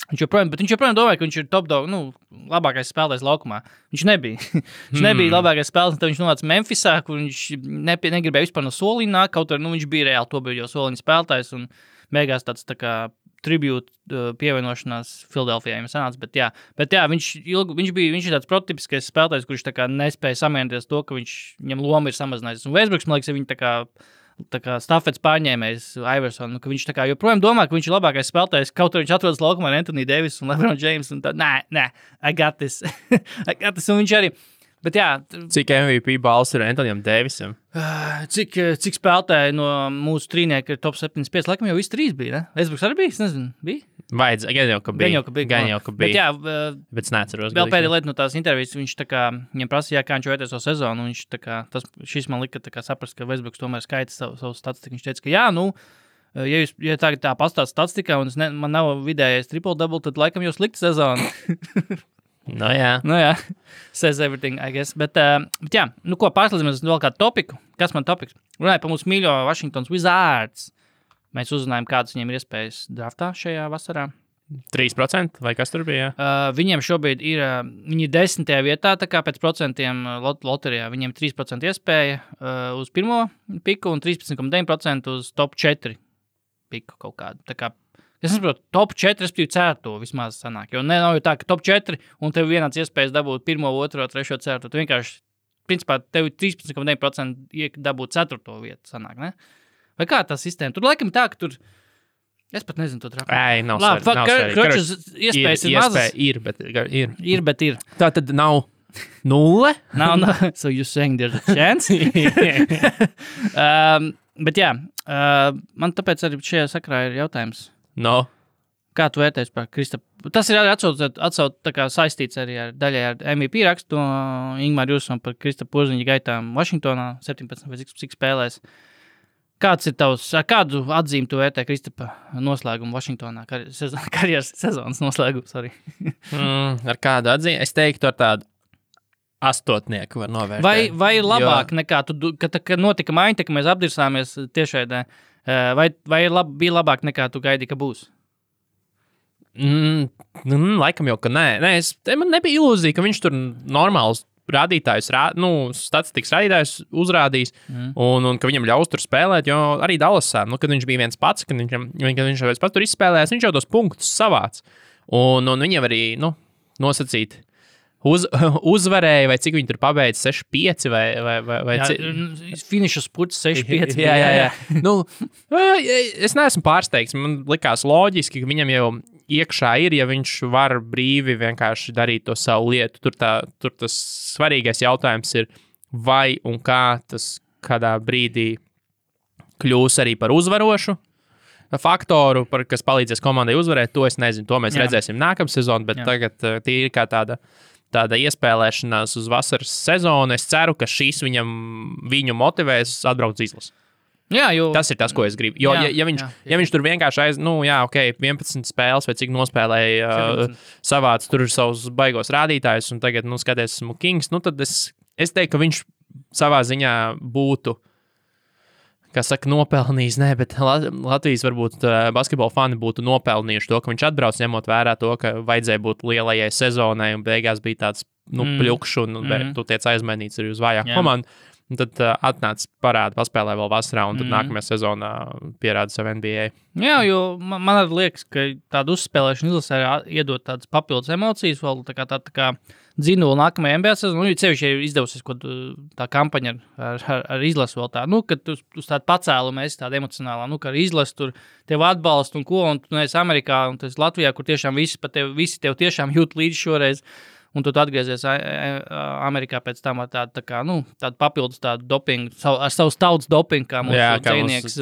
viņš joprojām domāja, ka viņš ir top dog, labākais spēlētājs laukumā. Viņš nebija. Viņš nebija labākais spēlētājs, tad viņš nonāca Memphisā, kur viņš negribēja vispār no soliņa nākt, kaut arī viņš bija reāli to bija jau soliņa spēlētājs un beigās tāds tā kā tribute pievienošanās Filadelfijā viņam sanāca, bet jā, viņš ir tāds prototipiskais spēlētājs, kurš tā kā nespēja samierināties to, ka viņam loma ir samazinājusies. Un Westbrooks, man liekas, ir viņa tā kā stafets pārņēmējs Iverson, ka viņš tā kā joprojām domā, ka viņš ir labākais spēlētājs, kaut arī viņš atrodas laukumā ar Anthony Davis un LeBron James, un tā, nē, I got this, un viņš arī. Bet jā, cik MVP balss ir Antonijam Davisam? Cik spēlētāji no mūsu trīnieka ir top 75? Laikam jau visi 3 bija, ne? Westbrooks arī bija? Es nezinu, bija? Gan jau, ka bija. Bet jā, bet es neatceros. Vēl pēdējā lieta no tās intervijas, viņš tā kā, viņam prasīja, kā viņš vērtēs savu sezonu, un viņš tā kā, šis man lika tā kā saprast, ka Westbrooks tomēr skaita savu statistiku. Viņš teica, ka jā, ja tā pastāst statistikā, un man nav vidējais triple-double, tad laikam jau slikta sezona. No jā. Says everything, I guess. Bet jā, ko pārslēdzamies vēl kādu topiku? Kas man topiks? Runāja par mūsu mīļo Washingtons Wizards. Mēs uzzinājām, kādas viņiem ir iespējas draftā šajā vasarā. 3% vai kas tur bija? Viņiem šobrīd ir, viņi ir 10. vietā, tā kā pēc procentiem loterijā. Viņiem 3% iespēja uz pirmo piku un 13,9% uz top 4 piku kaut kādu. Tā kā es nesaprotu, top 4, respektīvi 4. vismaz sanāk. Jo nav jau tā, ka top 4 un tev vienāds iespējas dabūt 1, 2, 3, 4. Tu vienkārši, principā, tev 13,9% dabūt 4. vietu sanāk, ne? Vai kā tā sistēma? Tur laikam tā, ka tur... Es pat nezinu to trapu. Nav svarīgi. Kročas iespējas ir mazas. Ir, bet ir. Ir, bet ir. Tā tad nav 0? No. So you're saying there's a chance? Bet jā, man tāpēc arī šajā sakrā ir jautājums. No. Kā tu vērtēsi par Kristapu? Tas ir arī atsauc tā kā saistīts arī ar daļai ar MVP rakstu Ingmāru Jūsam par Kristapu Porziņa gaitām Vašingtonā 17 vai cik spēlēs. Kāds ir tavs, kādu atzīmi tu vērtē Kristapa noslēgumu Vašingtonā, karjeras sezonas noslēgumu, sorry? Ar kādu atzīmi? Es teiktu ar tādu astotnieku var novērtēt. Vai ir labāk nekā tu, kad notika maiņa, ka mēs apdirsāmies tiešraidē, vai bija labāk nekā tu gaidīji, ka būs? Laikam jau, ka nē. Man nebija ilūzija, ka viņš tur normāls rādītājus, statistikas rādītājus uzrādīs un ka viņam ļaus tur spēlēt, jo arī Dallasā, kad viņš bija viens pats, kad viņš pats tur izspēlējās, viņš jau tos punktus savāc. Un viņam arī, nosacīt uzvarēja, vai cik viņi tur pabeidz 6-5 vai finiša spurts 6-5. Jā. Es neesmu pārsteigts. Man likās loģiski, ka viņam jau iekšā ir, ja viņš var brīvi vienkārši darīt to savu lietu. Tur tas svarīgais jautājums ir, vai un kā tas kādā brīdī kļūs arī par uzvarošu faktoru, kas palīdzēs komandai uzvarēt. To es nezinu, to mēs redzēsim nākamā sezonu, bet tagad tīri kā tāda iespēlēšanās uz vasaras sezonu. Es ceru, ka šīs viņu motivēs atbraukt uz izlasi. Jā, tas ir tas, ko es gribu. Jo, ja viņš tur vienkārši 11 spēles vai cik nospēlēja savāc tur savus baigos rādītājus un tagad, skaties, esmu kings, tad es teiktu, ka viņš savā ziņā būtu, kā saka, nopelnījis, bet Latvijas varbūt basketbola fani būtu nopelnījuši to, ka viņš atbrauc, ņemot vērā to, ka vajadzēja būt lielajai sezonai un beigās bija tāds, pļukšs un tu tiec aizmainīts arī uz vājāku komandu. Un tad atnāc parādi, paspēlē vēl vasarā, un tad nākamajā sezonā pierāda savu NBA. Jā, jo man arī liekas, ka tāda uzspēlēšana izlasē iedod tādas papildus emocijas, vēl tā kā dzinuli nākamajā NBA sezonā. Cevišķi ir izdevusies tā kampaņa ar izlasu vēl tā, kad uz tādu pacēlumu esi tāda emocionālā, ka ar izlasu tur tev atbalstu un ko, un tu neesi Amerikā, un tu esi Latvijā, kur tiešām visi tev tiešām jūt līdzi šoreiz. Un tu atgriezies Amerikā pēc tam ar tādu papildus tādu dopingu, ar savu tautas dopingu, kā mūsu dzejnieks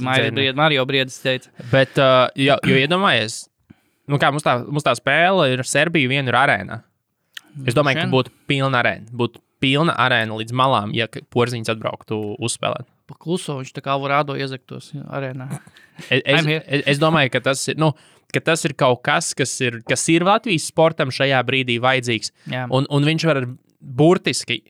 Mario Briedis teica. Bet, jo iedomājies, mums tā spēle ir Serbija viena ir arēnā. Es domāju, ka būtu pilna arēna. Būtu pilna arēna līdz malām, ja Porziņš atbrauktu uzspēlēt. Pa kluso viņš tā kā Alvarado iezaktos arēnā. Es domāju, ka tas ir, ka tas ir kaut kas, kas ir Latvijas sportam šajā brīdī vajadzīgs. Un viņš var burtiski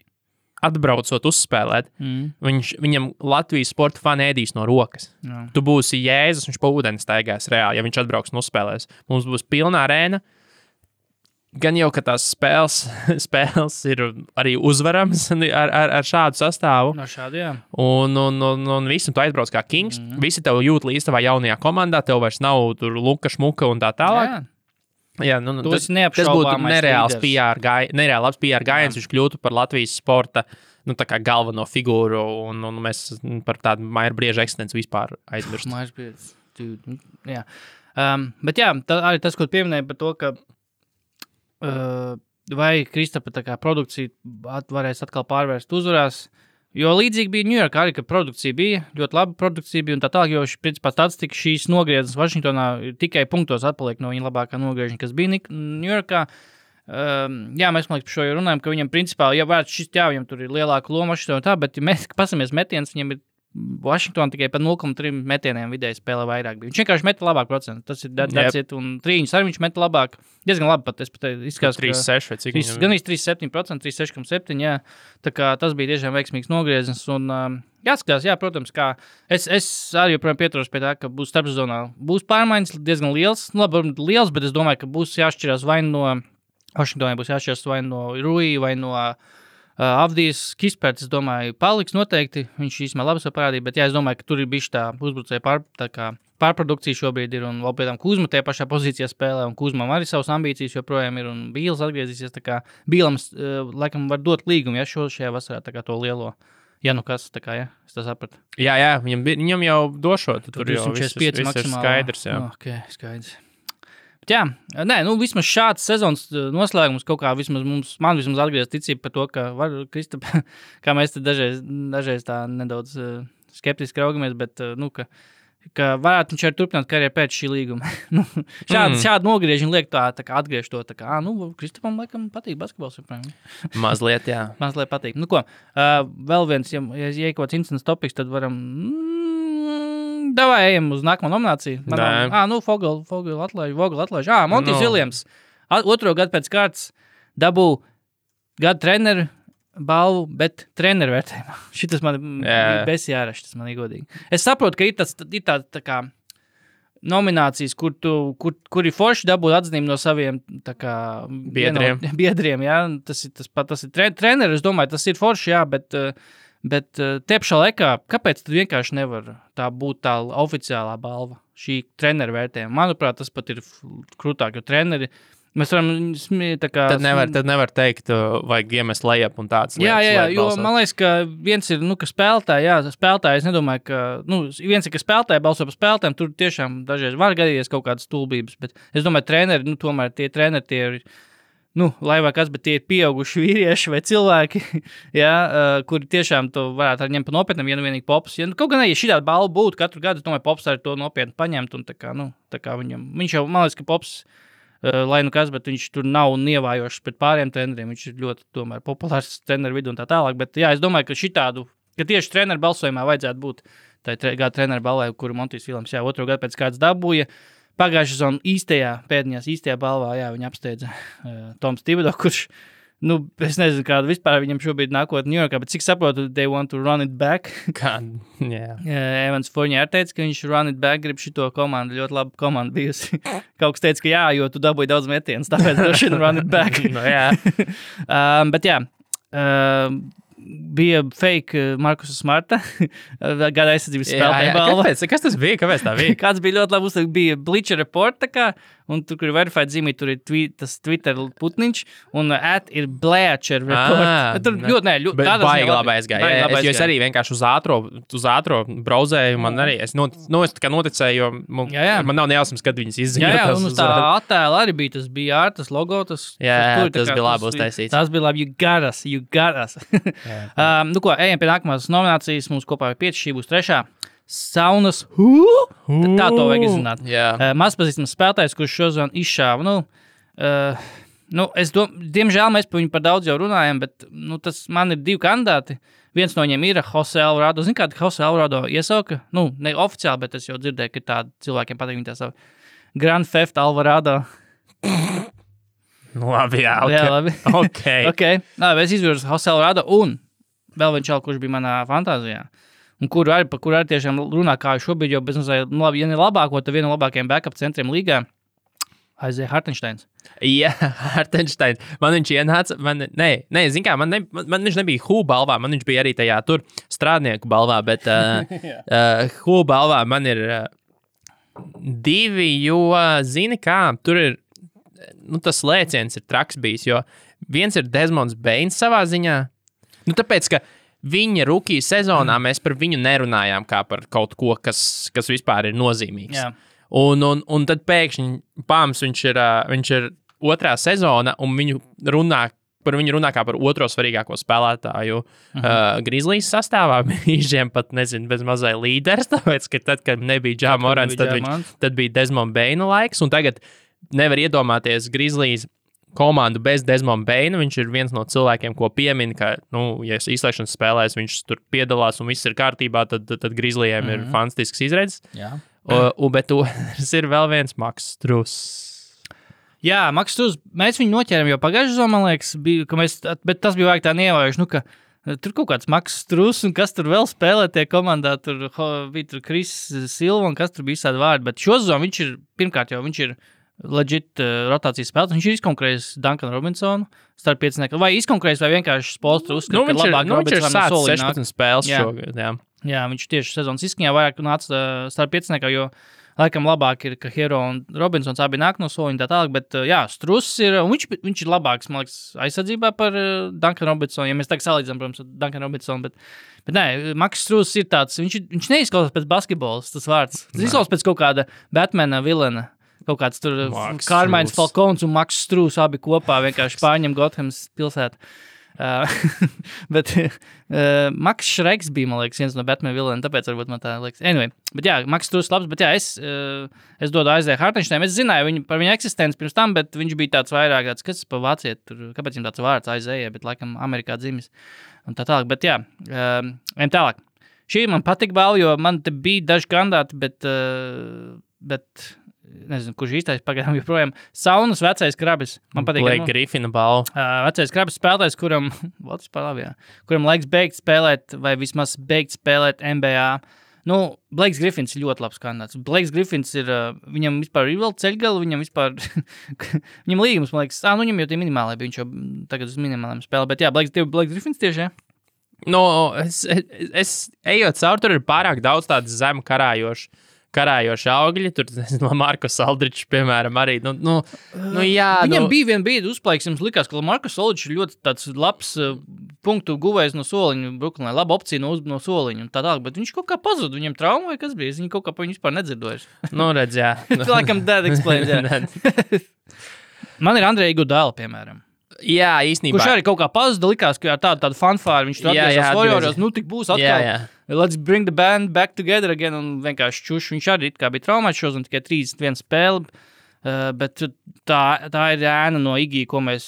atbraucot uzspēlēt. Viņam Latvijas sporta fani ēdīs no rokas. Tu būsi Jēzus, viņš pa ūdeni staigās reāli, ja viņš atbrauks un uzspēlēs. Mums būs pilna arēna. Gan jau, ka tās spēles ir arī uzvarams ar šādu sastāvu. No šādu, jā. Un visi, tu aizbrauc kā kings, visi tev jūt līdz tavā jaunajā komandā, tev vairs nav tur luka, šmuka un tā tālāk. Jā, tas būtu nereāls labs PR gājiens, viņš kļūtu par Latvijas sporta tā kā galveno figūru, un mēs par tādu Maira Brieža eksistenci vispār aizmirst. Maira Brieža, jā. Bet jā, arī tas, ko pieminēja par to, ka vai Kristapa tā kā produkcija varēs atkal pārvērst uzvarās, jo līdzīgi bija Ņujorkā arī, ka produkcija bija, ļoti laba produkcija bija un tā tālāk, jo principā statistika šīs nogrieznes Vašingtonā tikai punktos atpaliek no viņa labākā nogriežņa, kas bija Ņujorkā. Jā, mēs man liekas par šo jau runājam, ka viņam principā, viņam tur ir lielāka loma Vašingtonā tā, bet ja mēs pasamies metiens, viņam ir Vašingtonā tikai par 0,3 metieniem vidēji spēlē vairāk bija. Viņš vienkārši meta labāk procentu. Tas ir that's un trīņus arī viņš meta labāk. Diezgan labi pat, es pat izskatās, 3,6 vai cik? Gan 3,7%, 3,6,7, jā. Tā kā tas bija tiešām veiksmīgs nogrieznis un jāskatās, jā, protams, kā es arī joprojām pieturos pie tā, ka būs starpsezonā. Būs pārmaiņas diezgan liels, liels, bet es domāju, ka būs jāšķirās vai no Vašingtonai būs jāšķirās vai no Rui vai no Avdijas Kisperts, es domāju, paliks noteikti. Viņš īstenībā labi sev parādīja, bet jā, es domāju, ka tur ir bišķi tā uzbrucēja pārprodukcija šobrīd ir, un vēl pie tam Kuzma tajā pašā pozīcijā spēlē, un Kuzmam arī savas ambīcijas joprojām ir, un Bīls atgriezīsies, tā kā Bīlam, laikam, var dot līgumu, ja šajā vasarā tā kā to lielo, ja nu kas, tā kā, ja, es tā sapratu. Jā, viņam jau došot, tur jau viss ir skaidrs, jā. Ok, skaidrs. Bet jā, nē, vismaz šāds sezonas noslēgums kaut kā man vismaz atgriez ticība par to, ka var Kristap, kā mēs te dažreiz tā nedaudz skeptiski raugamies, bet, ka varētu viņš arī turpināt karjeru pēc šī līguma. Šādi nogriežņi liek tā kā atgriež to, tā kā, Kristapam laikam patīk basketbols. Mazliet, jā. Mazliet patīk. Vēl viens, ja kaut kāds incidents topiks, tad varam, davai ejam uz nākamo nomināciju. Vogel atlaiž. Montijs Viljams. Otro gadu pēc kārtas dabū gadu treneru balvu, bet treneru vērtējumā. Šitas man besjāraši, tas man ir godīgi. Es saprotu, ka ir tā kā nominācijas, kur ir forši dabūt atzinību no saviem tā kā biedriem, jā. Tas ir treneris, es domāju, tas ir forši, jā, bet te pašā laikā, kāpēc tad vienkārši nevar tā būt tā oficiālā balva, šī treneru vērtējuma? Manuprāt, tas pat ir krūtāk, jo treneri mēs varam Tad nevar teikt, vajag iemest lejap un tāds lietas. Jā, jo man liekas, ka viens ir, ka spēlētāji, es nedomāju, ka, viens ir, ka spēlētāji balso par spēlētājiem, tur tiešām dažreiz var gadīties kaut kādas stulbības, bet es domāju, treneri, tomēr tie treneri, tie ir, lai vai kas, bet tie ir pieauguši vīrieši vai cilvēki, kuri tiešām to varētu arī ņemt pa nopietnam, ja vienīgi Pops. Kaut gan, ja šī tāda balva būtu katru gadu, es domāju, Pops arī to nopietni paņemt, un tā kā viņš jau, man liekas, ka Pops, lai kas, bet viņš tur nav nievājošs pret pāriem treneriem, viņš ir ļoti tomēr populārs treneru vidu un tā tālāk, bet jā, es domāju, ka tieši treneru balsojumā vajadzētu būt tā gada treneru balvai, kuru Montijs Viljams, otro gadu pēc kāds dabūja. Pagājušā sezonā īstajā balvā, viņi apsteidza Toms Thibodeau, kurš, es nezinu, kāda vispār viņam šobrīd nākotnē Ņujorkā, bet cik saprotu, they want to run it back. Evans Fournier teica, ka viņš run it back, grib šito komandu, ļoti laba komanda bijusi. Kaut kas teica, ka jo tu dabūji daudz metienus, tāpēc droši vien run it back. Bet jā, bija fake Markusa Smarta, gada aizsardzības spēlētāja balva. Kas tas bija? Kāpēc tā bija? Kāds bija ļoti labi, bija Bleacher Report, un tur, kur ir verified zīmī, tur ir tas Twitter putniņš, un ir Bleacher Report. Tur ļoti, baigi labi aizgāja. Es arī vienkārši uz ātro brauzēju, man arī, es tā kā noticēju, jo man nav nejausmas, kad viņas izziņo. Jā, un uz tā attēla arī bija, tas bija tas logo, tas bija labi uztaisīts. Tas bija labi, you got us. Ejam pie nākamās nominācijas, mums kopā ir 5, šī būs 3. Saunas, tā to vajag izzināt. Mazpazīstams spēlētājs, kurš šodien izšāva, diemžēl mēs par viņu par daudz jau runājam, bet, tas man ir 2 kandidāti. Viens no viņiem ir Jose Alvarado. Zini, kāda Jose Alvarado iesauka? Ne oficiāli, bet es jau dzirdēju, ka tādi cilvēkiem patīk viņa tā savu. Grand Theft Alvarado. Labi, jā, labi. Okay. Es izvirzu Jose Alvarado un vēl viens čal, kurš bija manā fantāzijā. Un kuru arī tiešām runā, kā šobrīd, jo bez mazliet, ja ne labāko, tad viena no labākajiem backup centriem līgā, Isaiah Hartensteins. Jā, Hartensteins. Man viņš ienāca, zin kā, man viņš nebija Who balvā, man viņš bija arī tajā tur strādnieku balvā, bet Who balvā man ir 2, jo, zini kā, tur ir, tas lēciens ir traks bijis, jo viens ir Desmonds Bains savā ziņā, tāpēc, ka viņa rookie sezonā mēs par viņu nerunājām kā par kaut ko, kas vispār ir nozīmīgs. Jā. Un tad pēkšņi pāms viņš ir 2. sezona, un par viņu runā kā par 2. svarīgāko spēlētāju Grizzlies sastāvā. Viņiem pat, nezinu, bez mazai līderis, tāpēc, ka tad, kad nebija Ja Morants, tad bija Desmond Baina laiks, un tagad nevar iedomāties Grizzlies komandu bez Desmond Baina. Viņš ir viens no cilvēkiem, ko piemin, ka, ja izslēgšanas spēlēs viņš tur piedalās un viss ir kārtībā, tad Grizzlyiem ir fantastisks izredzes. Bet tas ir vēl viens Maks Struss. Jā, Maks Struss, mēs viņu noķēram jau pagājušajā sezonā, man liekas, bet tas bija vajag tā neievērojuši, ka tur kaut kāds Maks Struss un kas tur vēl spēlē tie komandā, tur bija tur Chris Silva un kas tur bija visādi vārdi, bet šo sezonu viņš ir, pirmkārt jau viņš ir legit rotācijas spēlētājs. Viņš ir izkonkurējis Duncanu Robinsonu starp 5. Vai izkonkurējis, vai vienkārši Spolstra uzskata, ka labāk Robinsonam no solī nāk. 16 spēles šogad, Jā, viņš tieši sezonas izskaņā vairāk nāca starp 5. jo laikam labāk ir, ka Hero un Robinsons abi nāk no soliņa tā tālāk, bet Struss ir, un viņš ir labāks, man liekas, aizsardzībā par Duncanu Robinsonu, ja mēs tagad salīdzinām, protams, Duncanu Robinsonu, bet nē, Maks Struss ir tāds, viņš neizklausās pēc basketbolas, tas vārds. Tas izklausās pēc kaut kāda Batmana vilena. kaut kāds tur Max Kārmains Strūs. Falkons un Maks Strūs abi kopā vienkārši pārņem Gothams pilsētu. Bet Maks Šreks bija, man liekas, viens no Batman vilēm, tāpēc varbūt man tā liekas. Anyway, bet jā, Maks Strūs labs, bet jā, es dodu Aizēju Hartenšteinam. Es zināju par viņu eksistenci pirms tam, bet viņš bija tāds vairāk, kas pa vāciet, kāpēc viņam tāds vārds Aizēja, bet laikam Amerikā dzimis un tā tālāk. Bet jā, ejam tālāk. Šī man patika balva, jo man te bija daži kandidāti, bet nezinu, kurš īstais pagaidām joprojām. Saunas vecais krabis. Man patīk. Blake Griffina balva. Vecais krabis spēlētājs, kuram laiks beigt spēlēt, vai vismaz beigt spēlēt NBA. Nu, Blakes Griffins ir ļoti labs kandidāts. Blakes Griffins ir, viņam vispār ir vēl ceļgali, viņam vispār, viņam līgums, man liekas, viņam jau tie minimālai bija, viņš jau tagad uz minimāliem spēlē, bet jā, Blakes Griffins tieši, jā. No, es ejot caur, tur ir pārāk daudz tādas zemu karājoši augļi. Tur, nezinu, Markus Aldričs, piemēram, arī. Jā. Viņam bija viena brīdi uzplaiks, jums likās, ka Markus Aldričs ir ļoti tāds labs punktu guvējs no soliņa Brooklynā, laba opcija no soliņa un tā tālāk, bet viņš kaut kā pazuda, viņam trauma vai kas bija, es viņu kaut kā pa viņu vispār nedzirdoju. Redz, jā. Laikam that explains, jā. Man ir Andreja Iguodala, piemēram. Jā, īstenībā. Kurš arī kaut kā pazuda, likās, ka ar tādu fanfāru viņš tur atgriezās Warriors, tik būs atkal. Jā. Let's bring the band back together again, un vienkārši čuš. Viņš arī kā bija traumēts šos un tikai 31 spēli, bet tā ir ēna no Iggy, ko mēs,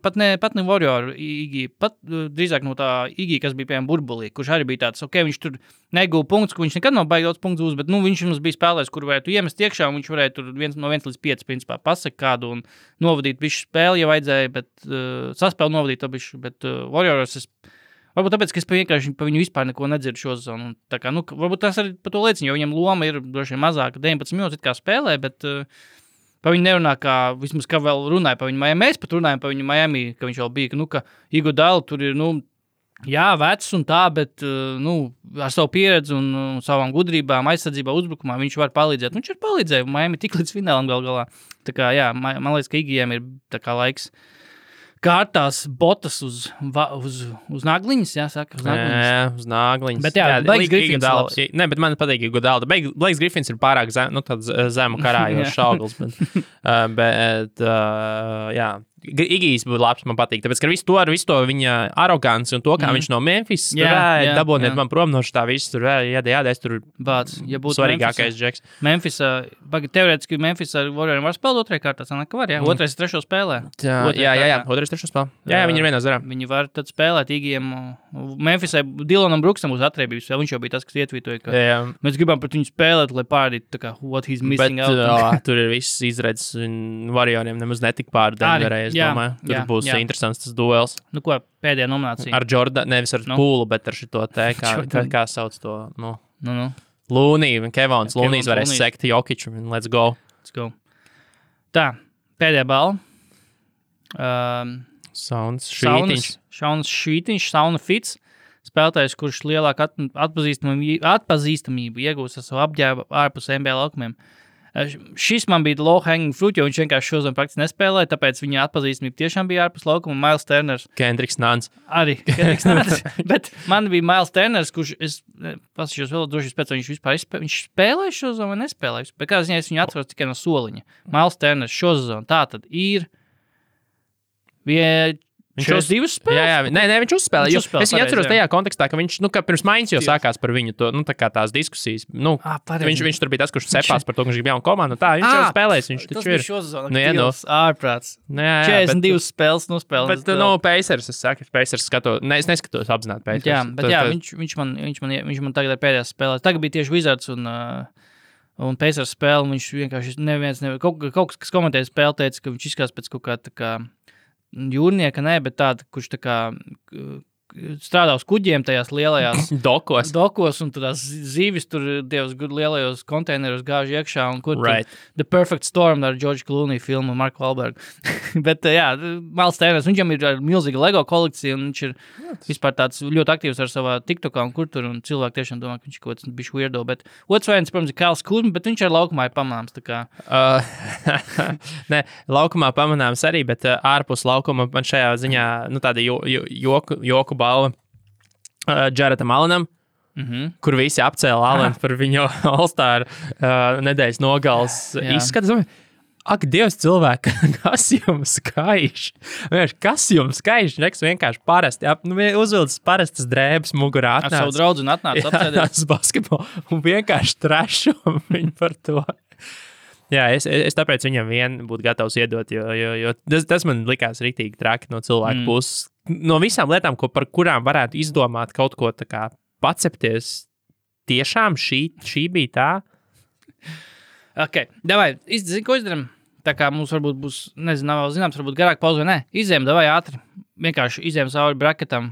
pat ne Warrior Iggy, pat drīzāk no tā Iggy, kas bija piemēram burbulī, kurš arī bija tāds, viņš tur neguva punktus, ka viņš nekad nav baigi daudz punktus uz, bet viņš mums bija spēlējis, kur varētu iemest iekšā, un viņš varēja tur no 1 līdz 5 principā pasaka kādu un novadīt visu spēli, ja vajadzēja, bet saspēli novadīt, bet Warriors varbūt tāpēc, ka es vienkārši pa viņu vispār neko nedzirdu šo sezonu. Tā kā, varbūt tas arī par to liecina, jo viņam loma ir droši vien mazāka, 19 minūtes kā spēlē, bet pa viņu nerunā, kā vismaz kā vēl runāja pa viņu Miami. Mēs pat runājam pa viņu Miami, ka viņš vēl bija, ka Iguodala tur ir, jā, vecs un tā, bet, ar savu pieredzi un savām gudrībām, aizsardzībā, uzbrukumā viņš var palīdzēt. Viņš ir palīdzējis Miami tik līdz finālam galā. Tā kā, jā, man liekas, ka Iggyiem ir tā kā laiks kārtās botas uz nagliņas, jāsaka, uz nagliņas. Jā, uz nagliņas. Bet jā, Blakes Griffins labs. Ne, bet man patīk Iguodala. Blakes Griffins ir pārāk tāds zemu karājošs auglis, bet jā. Igijs būtu labs, man patīk, tāpēc, ka visu to viņa aroganci un to, kā viņš no Memphis dabūniet man prom no šitā visu, tur jādēs, tur svarīgākais džeks. Memphis, teorētiski Memphis ar Warrioriem var spēlēt otrajā kārtā, sanāk, ka var, jā? Otrais, trešo spēlē. Jā, otrais, trešo spēlē. Jā, viņi ir vienā zarā. Viņi var tad spēlēt Igijiem. Memphisai Dylanam Brooksam uz atriebības, viņš jau bija tas, kas ietvītoja, ka mēs gribam pret viņu spēlēt, lai pārādītu, tā kā, what he's missing out. Bet tur ir viss izredzes un Warrioriem nemaz netik pār Denverē. Tur būs interesants tas duels. Ko, pēdējā nominācija? Ar Jordan, nevis ar Pūlu, bet ar šito te, kā sauc to, Looney, Kevons, Looney's varēs sekt Jokiču, and let's go. Tā, pēdējā balva. Saunas Šītiņš, Sauna Fits, spēlētājs, kurš lielāku atpazīstamību iegūst ar savu apģērbu ārpus NBA laukumiem. Šis man bija low hanging fruit, jo viņš vienkārši šodien praktiski nespēlēja, tāpēc viņa atpazīstamība tiešām bija ārpus laukuma. Miles Turners. Kendricks Nunns. Arī Kendricks Nunns. Bet man bija Miles Turners, kurš, es pasīšos vēl droši pēc, viņš vispār viņš spēlēja šo zonu vai nespēlēja. Bet kā ziņā es viņu atceros tikai no soliņa. Miles Turners šo zonu. Tā tad ir 42 spēles? Jā, viņš uzspēlēja. Es viņu atceros tajā kontekstā, ka viņš, ka pirms maiņas jau sākās par viņu to, tā kā tās diskusijas. Viņš tur bija tas, kurš cepās par to, ka viņš grib jaunu komandu. Tā, viņš jau spēlēs, viņš taču ir. Tas bija šozona, ārprāts. 42 spēles nospēlēs. Bet, Pacers, es saku, Pacers es neskatos apzināti Pacers. Jā, bet viņš man tagad ar pēdējās spēlēs. Tagad bija tieši Wizards un Pacers spēle, viņš vienkārši kaut kas komentēja spēli, teica, ka viņš izskatās pēc kaut kā tā kā jūrnieka, bet tāda, kurš tā kā strādā uz kuģiem tajās lielajās dokos un tādās zīvis tur dievs lielajos konteineros gāž iekšā un kur The Perfect Storm ar George Clooney filmu Marku Wahlbergu. Bet jā, Miles Turners, viņam ir milzīga Lego kolekcija un viņš ir vispār tāds ļoti aktīvs ar savā TikTokā un kur tur un cilvēki tiešām domā, ka viņš kaut kāds bišķi weirdo, bet otrs variants, protams, ir Kyle Kuzma, bet viņš ar laukumā ir pamanāms, tā kā. Ne, laukumā pamanāms arī, bet ārpus laukuma man šajā ziņā, tāda joku balva Jaredam Allenam, kur visi apcēla Alenu par viņu All-Star nedēļas nogals izskatu. Ak, Dievs, cilvēki, kas jums skaiš? Kas jums skaiš? Vienkārši parasti. Uzvilcis parastas drēbes mugurā. Ar savu draugu atnāca apcēdēs basketbolu un vienkārši trešo viņu par to. Jā, es tāpēc viņam vien būtu gatavs iedot, jo tas man likās riktīgi traki no cilvēku puses. No visām lietām, par kurām varētu izdomāt kaut ko tā kā pacepties, tiešām šī bija tā? Ok, davai, ko izdaram? Tā kā mums varbūt būs, nezinu, nav vēl zināms, varbūt garāk pauze vai ne. Izējam, davai ātri. Vienkārši izējam cauri bracketam.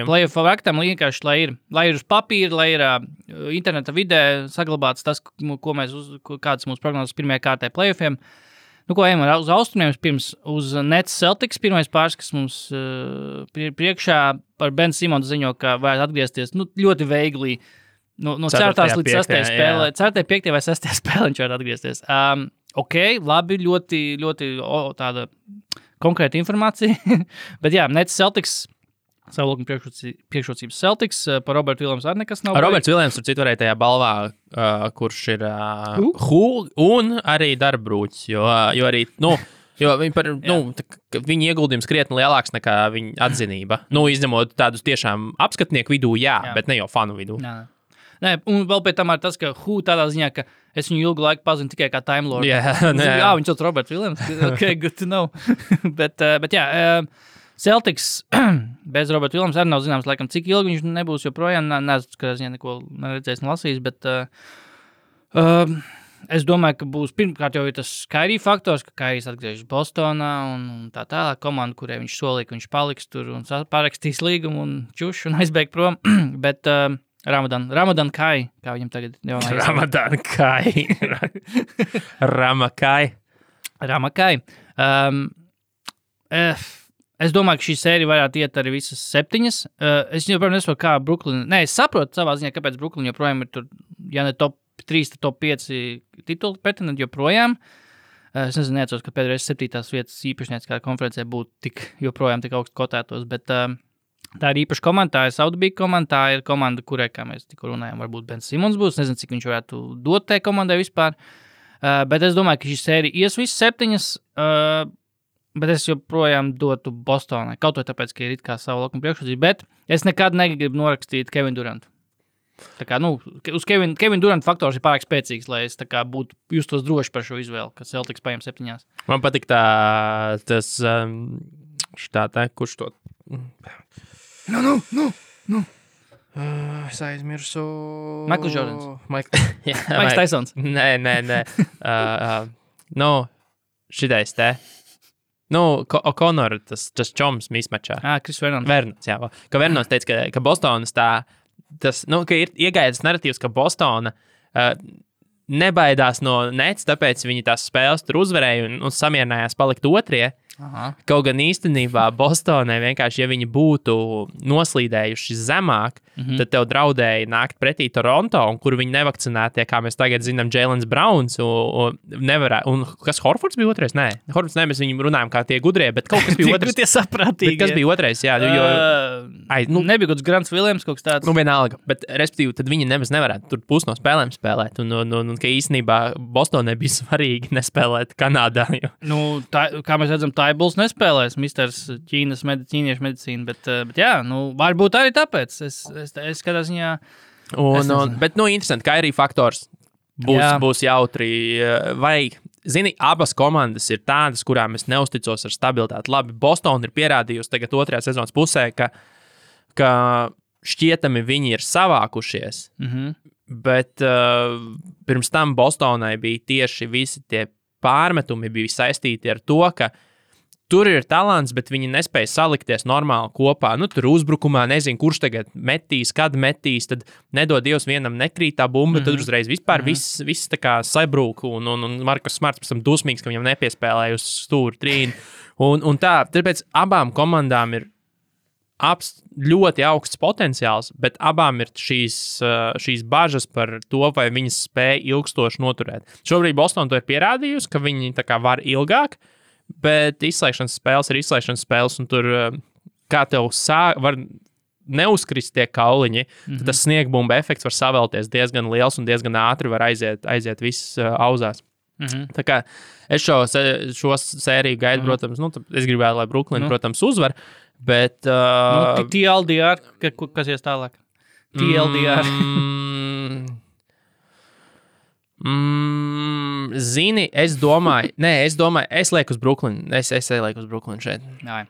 Playoff bracketam vienkārši, lai ir uz papīra, lai ir interneta vidē saglabāts tas, kādas mūsu prognozes pirmajā kārtē playoffiem. Ko ejam uz austrumiem pirms uz Nets Celtics. Pirmais pāris, kas mums priekšā par Ben Simons ziņo, ka varētu atgriezties ļoti veigli no 4. līdz 6. spēlē. 4., 5. vai 6. spēlē viņš varētu atgriezties. Ok, labi, ļoti, ļoti tāda konkrēta informācija. Bet jā, Nets Celtics, savu lūkumu priekšrocības Celtics, par Robertu Williams arī nekas nav. Roberts Williams tur citu varēja tajā balvā, kurš ir un arī darbrūķis, jo arī, viņa ieguldījums krietni lielāks nekā viņa atzinība. Izņemot tādus tiešām apskatnieku vidū, jā, bet ne jau fanu vidū. Nē, un vēl pēc tam ir tas, ka tādā ziņā, ka es viņu ilgu laiku pazinu tikai kā Time Lord. Viņš sauc Roberts Williams. Ok, good to know. bet jā, Celtics bez Roberta Williams arī nav zināms, laikam, cik ilgi viņš nebūs joprojām. Nezinu, ka es neko neredzējis un lasījis, bet es domāju, ka būs pirmkārt jau ir tas Kyrie faktors, ka Kyries atgriežas Bostonā un tā tālāk komanda, kurai viņš solīja, ka viņš paliks tur un parakstīs līgumu un čuš un aizbēg prom. Bet Ramadan Kai, kā viņam tagad jau nav. Ramadan Kai. Ramakai. Es domāju, ka šī sērija varētu iet arī visas 7. Es joprojām nesaprotu, kā Brooklyn. Nē, es saprotu savā ziņā, kāpēc Brooklyn joprojām ir tur, ja ne top 3, tad top 5 titulu pretendenti joprojām. Es nezinu, neatceros, ka pēdējais 7. vietas īpašnieks kā konferencē būtu joprojām tik augstu kotētos, bet tā ir īpaša komanda, tā ir Saudabīga komanda, tā ir komanda, kurai, kā mēs tikko runājām, varbūt Ben Simons būs, nezinu, cik viņš varētu dot tai komandai vispār, bet es domāju, ka šī sērija ies visas 7, bet es joprojām dotu Bostonai, kaut vai tāpēc, ka ir it kā savu lakumu priekšrocību, bet es nekad negribu norakstīt Kevin Durantu. Tā kā, uz Kevin Durant faktors ir pārāk spēcīgs, lai es tā kā būtu justos droši par šo izvēli, ka Celtics paņem 7. Man patīk tas, kurš to... Es aizmirsu. Michael Jordans. Maiks Tysons. Nē. Šitais te. O'Connor, tas čoms mismačā. Chris Vernons. Vernons, jā. Ka Vernons teica, ka Bostonas ka ir iegājis narratīvs, ka Bostona nebaidās no Nets, tāpēc viņi tās spēles tur uzvarēja un samierinājās palikt otrie. Aha. Kaut gan īstenībā Bostonai vienkārši, ja viņi būtu noslīdējuši zemāk, tad tev draudēja nākt pretī Toronto, un kur viņi nevakcinētie, kā mēs tagad zinām, Jaylen Browns, un kas Horfords bija otrais? Nē, Horfords nē, mēs viņam runājam kā tie gudrie, bet kaut kas bija otrais. Tie saprātīgi. Bet kas bija otrais, jā. Nebija kaut kāds Grants Williams, kaut kas tāds. Vienalga, bet respektīvi, tad viņi nemaz nevarētu tur pusi no spēlēm spēlēt, un ka īstenībā Bostonai bija svarīgi nespēlēt Kanādā. Kā mēs redzam, Bulls nespēlēs, misters ķīniešu medicīnu, bet jā, varbūt arī tāpēc. Es kādā ziņā... Bet, interesanti, ka arī faktors būs jautri. Vai, zini, abas komandas ir tādas, kurām es neusticos ar stabilitāti. Labi, Boston ir pierādījusi tagad 2. sezonas pusē, ka šķietami viņi ir savākušies, bet pirms tam Bostonai bija tieši visi tie pārmetumi bija saistīti ar to, ka tur ir talants, bet viņi nespēja salikties normāli kopā. Tur uzbrukumā nezinu, kurš tagad metīs, kad metīs, tad nedod Dievs vienam nekrīt tā bumba, tad uzreiz vispār viss tā kā sabrūk, un Markus Smarts pēc tam dusmīgs, ka viņam nepiespēlēja uz stūri trīni. Un tā, tāpēc abām komandām ir ļoti augsts potenciāls, bet abām ir šīs bažas par to, vai viņas spēja ilgstoši noturēt. Šobrīd Boston to ir pierādījusi, ka viņi tā kā var ilgāk, bet izslēgšanas spēles ir izslēgšanas spēles, un tur kā tev var neuzkrist tie kauliņi, tad tas sniegbumba efekts var savēlties diezgan liels un diezgan ātri var aiziet viss auzās. Tā kā es šo sēriju gaidu, protams, es gribētu, lai Brooklyn, protams, uzvar, bet... TLDR, kas ies tālāk? TLDR. Zini, es domāju, es lieku uz Brooklyn. Es lieku uz Brooklyn šeit. Jā.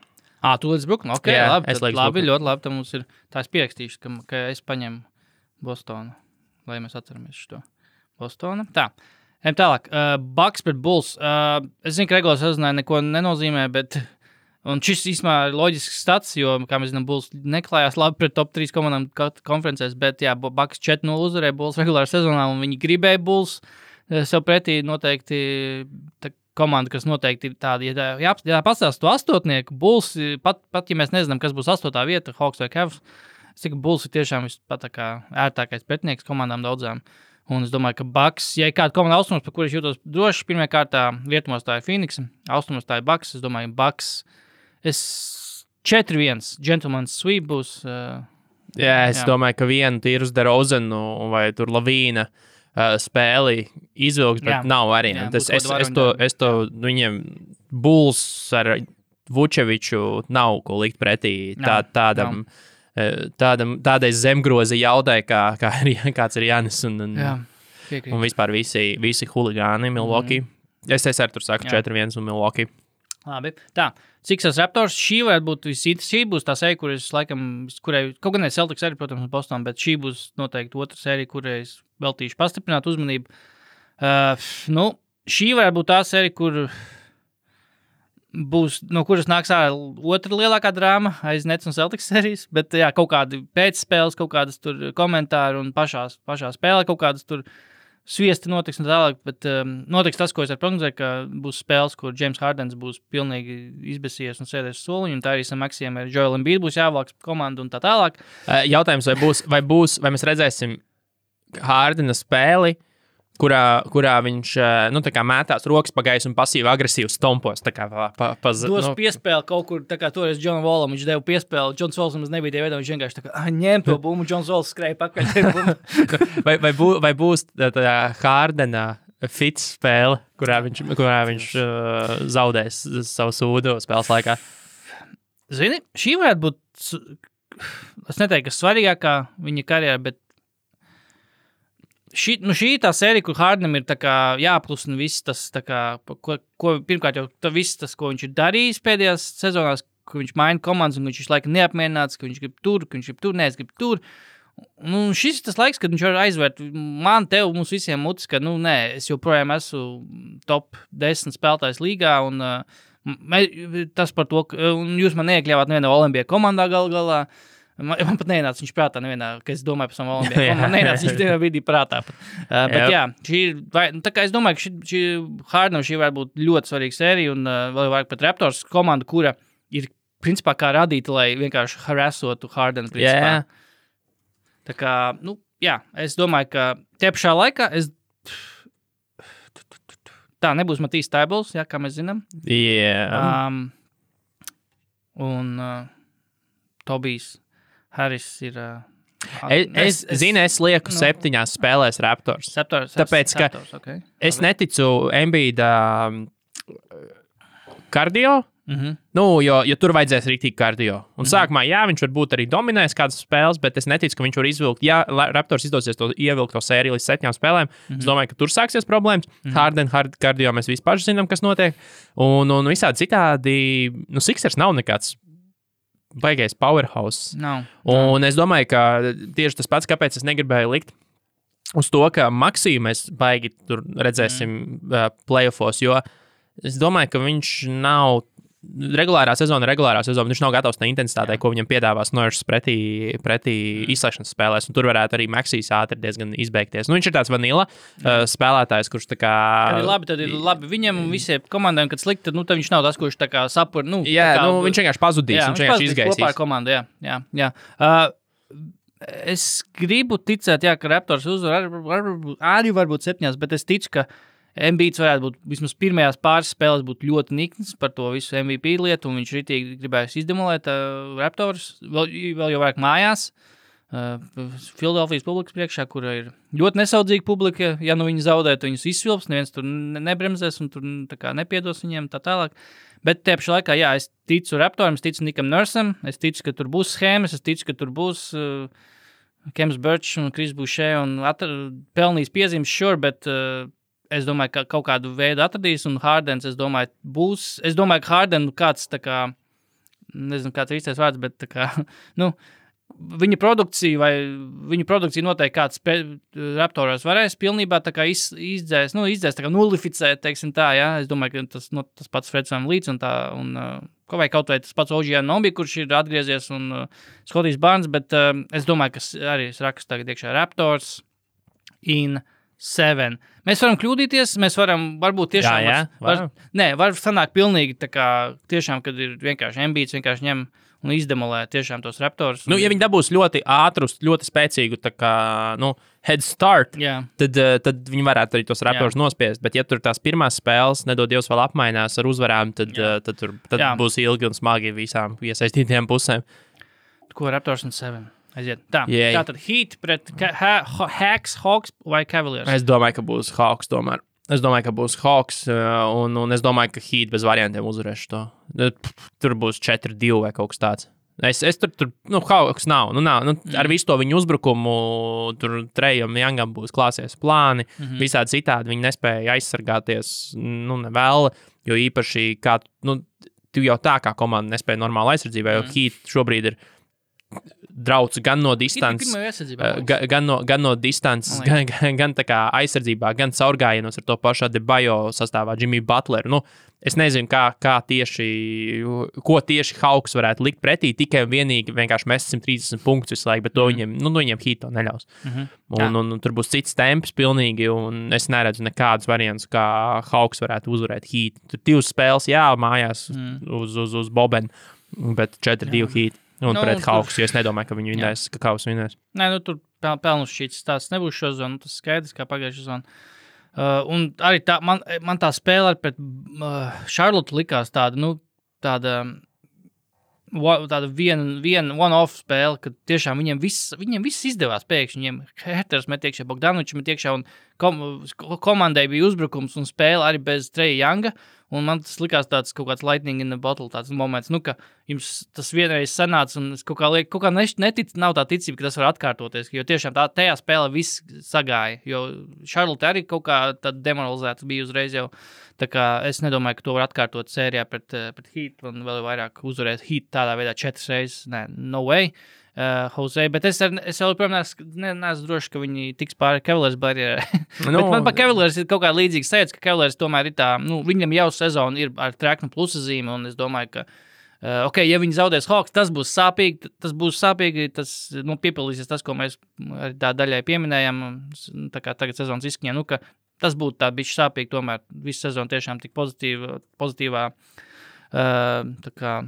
Tu līdz Brooklyn? Ok, Jā, labi. es lieku uz Labi, Brooklyn. ļoti labi. Tad mums ir tā es pierakstīšu, ka es paņemu Bostonu, lai mēs atceramies šo Bostonu. Tā. Ejam tālāk. Bucks pret Bulls. Es zinu, ka regulāri sezonā neko nenozīmē, bet... Un šis īstenībā ir loģisks stats, jo, kā mēs zinām, Bulls neklājās labi pret top 3 komandām konferencēs, bet jā, Bucks 4-0 uzvarēja Bulls regulāri sezonā, un viņi gribēja Bulls sev pretī noteikti komanda, kas noteikti ir tāda, ja pastāst to astotnieku, Bulls, pat ja mēs nezinām, kas būs 8. vieta, Hawks vai Cavs, es tikai Bulls ir tiešām pat tā kā ērtākais pretinieks komandām daudzām. Un es domāju, ka Bucks, ja ir kāda komanda austrumos, par kuru es jūtos droši, pirmajā kārtā rietumos tā ir Phoenix, austrumos tā ir Bucks, es domāju, Bucks 4-1, gentleman's sweep būs. Es domāju, ka vienu tīrus DeRozanu vai tur Lavīna spēli izvilks, bet nav arī. Es to viņiem Bulls ar Vučeviču nav ko likt pretī tādai zemgrozi jaudai, kāds ir Jānis un vispār visi huligāni Milwaukee. Es arī tur saku 4-1 un Milwaukee. Labi, tā. Sixers Raptors, šī varētu būt šī būs tā sērija, kurai, kaut gan ne Celtics arī, protams, un Boston, bet šī būs noteikti otra sērija, kurai es veltīšu pastiprināt uzmanību. Šī varētu būt tā sērija, kur būs, no kuras nāks otra lielākā drāma aiz Nets un Celtics sērijas, bet jā, kaut kādi pēcspēles, kaut kādas tur komentāri un pašā spēlē kaut kādas tur sviesti notiks un tālāk, bet notiks tas, ko es prognozēju, ka būs spēles, kur James Hardens būs pilnīgi izbesies un sēdēs soliņu, un tā arī Maksiem ar Joel Embiid būs jāvāks komandu un tā tālāk. Jautājums, vai mēs redzēsim Hardena spēli, kurā viņš tā kā mētās rokas pa gaisu un pasīvi agresīvi stompos. Dos piespēli kaut kur, tā kā toreiz John Wallam, viņš deva piespēli, Johns Walls mums nebija tie veidā, viņš vienkārši tā kā ņem to bumbu, Johns Walls skrēja pakaļ. vai būs tā Hardena fits spēle, kurā viņš zaudēs savu sūdu spēles laikā? Zini, šī varētu būt, es neteiktu, ka svarīgākā viņa karjerā, bet šī ir tā sērija, kur Hardenam ir tā kā jāplusina viss tas, tā kā, pirmkārt jau viss tas, ko viņš ir darījis pēdējās sezonās, ka viņš maina komandas un viņš laika neapmierināts, ka viņš grib tur, negrib tur. Un šis ir tas laiks, kad viņš var aizvērt man, tev, mums visiem mutis, ka, es joprojām esmu top 10 spēlētājs līgā un tas par to, un jūs man neiekļāvāt nevienā Olimpijā komandā galā. Man pat nenāca viņš prātā nevienā, ka es domāju par savu Olimpiju. Man nenāca viņš tajā brīdī prātā. Bet jā, tā kā es domāju, ka šī Hardenam šī var būt ļoti svarīga sērija un vēl vairāk pat Raptors komanda, kura ir principā kā radīta, lai vienkārši harassotu Hardenu principā. Tā kā, es domāju, ka tie pašā laikā tā nebūs Matīs Taibls, kā mēs zinām. Un Tobijs Harris ir... Es lieku 7 spēlēs Raptors. Tāpēc, ka es neticu Embiida kardio, jo tur vajadzēs rīktīgi kardio. Un sākumā, viņš varbūt arī dominēs kādas spēles, bet es neticu, ka viņš var izvilkt. Ja Raptors izdosies ievilkt to sēriju līdz 7 spēlēm, es domāju, ka tur sāksies problēmas. Harden kardio mēs vispār zinām, kas notiek. Un visādi citādi, Sixers nav nekāds baigais powerhouse. Un es domāju, ka tieši tas pats, kāpēc es negribēju likt uz to, ka Maksiju mēs baigi tur redzēsim playoffos, jo es domāju, ka viņš nav regulārā sezona, viņš nav gatavs tā intensitātei, ko viņam piedāvās Norris pretī izslēgšanas spēlēs, un tur varētu arī Maksijs ātri diezgan izbeigties. Viņš ir tāds vanila spēlētājs, kurš tā kā... Tad ir labi viņam un visiem komandām, kad slikti, tad viņš nav tas, kurš tā kā sapur, viņš vienkārši pazudīs, viņš vienkārši izgaisīs. Kopā ar komandu, jā. Es gribu ticēt, ka Raptors uzvar arī varbūt 7, bet es ticu, ka Embiids varētu būt, vismaz pirmajās pāris spēles būt ļoti nikns par to visu MVP lietu, un viņš ritīgi gribēs izdemolēt Raptors, vēl jau vairāk mājās, Filadelfijas publikas priekšā, kura ir ļoti nesaudzīga publika, ja nu viņi zaudētu, viņus izsvilps, neviens tur nebremzēs un tur tā kā nepiedos viņiem tā tālāk. Bet tie pašā laikā, jā, es ticu Raptoram, es ticu Nikam Nursam, es ticu, ka tur būs schēmas, es ticu, ka tur būs Kems Birch un Kris Boucher un pelnīs piezīmes, sure, bet es domāju, ka kaut kādu veidu atradīs, un Hardens, es domāju, būs. Es domāju, ka Harden kāds tā kā, nezinu, kāds ir īstais vārds, bet tā kā, nu, viņa produkcija noteikti kāds Raptoros varēs pilnībā tā kā izdzēs, tā kā nulificēt, teiksim tā, jā. Es domāju, ka tas pats Freds VanVleets un tā, un vai kaut vai tas pats OG Anunoby, kurš ir atgriezies, un Scotties Barnes, bet es domāju, ka arī es rakstu tagad iekšā Raptors in 7. Mēs varam kļūdīties, mēs varam varbūt tiešām... var sanākt pilnīgi tā kā tiešām, kad ir vienkārši Embiids, vienkārši ņem un izdemolē tiešām tos Raptors. Nu, ja viņi dabūs ļoti ātrus, ļoti spēcīgu tā kā, head start, tad viņi varētu arī tos Raptors nospiest. Bet ja tur tās pirmās spēles, nedod Dievs vēl apmainās ar uzvarām, tad būs ilgi un smagi visām iesaistītajām pusēm. Ko Raptors un 7? Aiziet. Tātad Heat pret Hawks vai Cavaliers? Es domāju, ka būs Hawks tomēr. Es domāju, ka būs Hawks, un es domāju, ka Heat bez variantiem uzvarēs to. Tur būs 4-2 vai kaut kas tāds. Es tur Hawks nav. Ar visu to viņu uzbrukumu, tur Trejam Youngam būs klāsies plāni, visādi citādi viņi nespēja aizsargāties, nevēl, jo īpaši kā, tu jau tā kā komanda nespēja normāli aizsardzībā, jo Heat šobrīd ir drauds gan no distances, gan no distances, gan tā kā aizsardzībā, gan caurgājienos ar to pašu Adebayo sastāvā Jimmy Butler. Es nezinu, ko tieši Hawks varētu likt pretī, tikai un vienīgi vienkārši mest 130 punktus visu laiku, bet to viņiem Heat to neļaus. Un tur būs cits temps pilnīgi, un es neredzu nekādus variantus, kā Hawks varētu uzvarēt Heat. Tur 2 spēles, mājās uz Bobenu, bet 4-2 Heat. Un pret Hawks, jo es nedomāju, ka viņi vinnēs, ka Hawks vinnēs. Nē, tur pelnus šīs tās nebūs šo zonu, tas skaidrs, kā pagājušā zona. Un arī man tā spēle pret Charlotte likās tāda one-off spēle, kad tiešām viņiem viss izdevās pēkšņi. Viņiem Herters met iekšā, Bogdanovičs met iekšā, un komandai bija uzbrukums un spēle arī bez Treja Younga. Un man tas likās tāds kaut kāds lightning in the bottle, tāds moments, ka jums tas vienreiz sanāca, un es kaut kā nav tā ticība, ka tas var atkārtoties, jo tiešām tajā spēlē viss sagāja, jo Charlotte arī kaut kā tad demoralizēts bija uzreiz jau, tā kā es nedomāju, ka to var atkārtot sērijā pret Heat, un vēl vairāk uzvarēt Heat tādā veidā 4 reizes, no way. Jose, bet es joprojām neesmu droši, ka viņi tiks pāri Cavaliers barjerē. Bet man pa Cavaliers ir kaut kā līdzīga sajūta, ka Cavaliers tomēr ir tā, viņam jau sezona ir ar treknu plusa zīme, un es domāju, ka, ja viņi zaudēs Hawks, tas būs sāpīgi, tas piepildīsies tas, ko mēs tā daļai pieminējam, tā kā tagad sezonas izskaņā, ka tas būtu tā bišķi sāpīgi, tomēr visu sezonu tiešām tik pozitīvā, tā kā,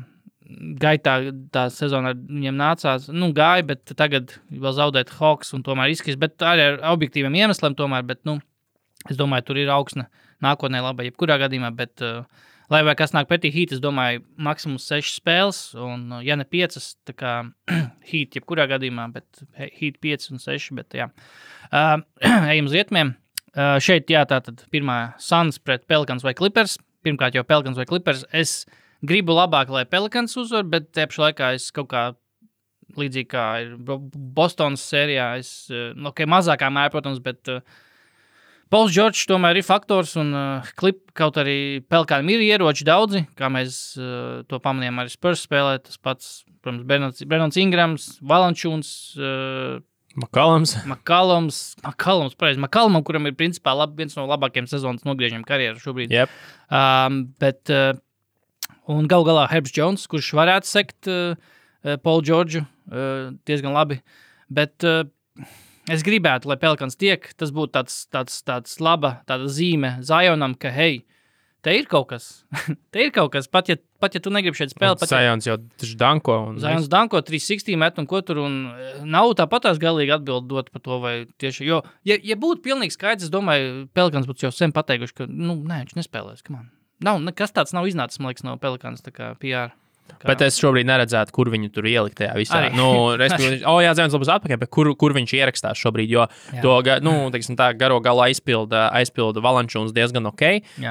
gaitā tā sezona viņiem nācās, gāja, bet tagad vēl zaudēt Hawks un tomēr izskatīs, bet arī ar objektīviem iemesliem tomēr, bet, es domāju, tur ir augsne nākotnē laba, jebkurā gadījumā, bet, lai vai kas nāk pretī Heat, es domāju, maksimums 6 spēles, un, ja ne 5, tā kā Heat jebkurā gadījumā, bet Heat 5 un 6, bet, jā. Ejam uz rietumiem. Šeit, tātad pirmā Suns pret Pelicans vai Clippers. Pirmkārt jau Pelicans vai Clippers. Es gribu labāk, lai Pelicans uzvar, bet te pašā laikā es kaut kā līdzīgi kā ir Bostonas sērijā, mazākā mērā, protams, bet Pauls Džordžs tomēr ir faktors, un kaut arī Pelikaniem ir ieroči daudzi, kā mēs to pamanījām arī Spurs spēlē, tas pats, protams, Brennons Ingrams, Valančūns, McCallums, pareizi, McCallumam, kuram ir principā viens no labākajiem sezonas nogriežiem karjeru šobrīd. Yep. Bet un gal galā Herbs Jones, kurš varētu sekt Paulu Džordžu diezgan labi, bet es gribētu, lai Pelicans tiek, tas būtu tāds laba tāda zīme Zionam, ka hei, te ir kaut kas, pat pat ja tu negribi šeit spēlēt. Zajons jau taču danko. Zajons danko 360 met un ko tur, un nav tāpatās galīgi atbildi dot par to, vai tieši, jo, ja būtu pilnīgi skaidrs, es domāju, Pelikans būtu jau sen pateikuši, ka, nē, viņš nespēlēs, come on. Nav, nekas tāds nav iznācis, man liekas, no Pelikans, tā kā PR. Bet es šobrīd neredzētu, kur viņu tur ielikt tajā visā. Zajons labus atpakaļ, bet kur viņš ierakstās šobrīd, jo to, teiksim tā, garo galu aizpilda Valančūns diezgan ok.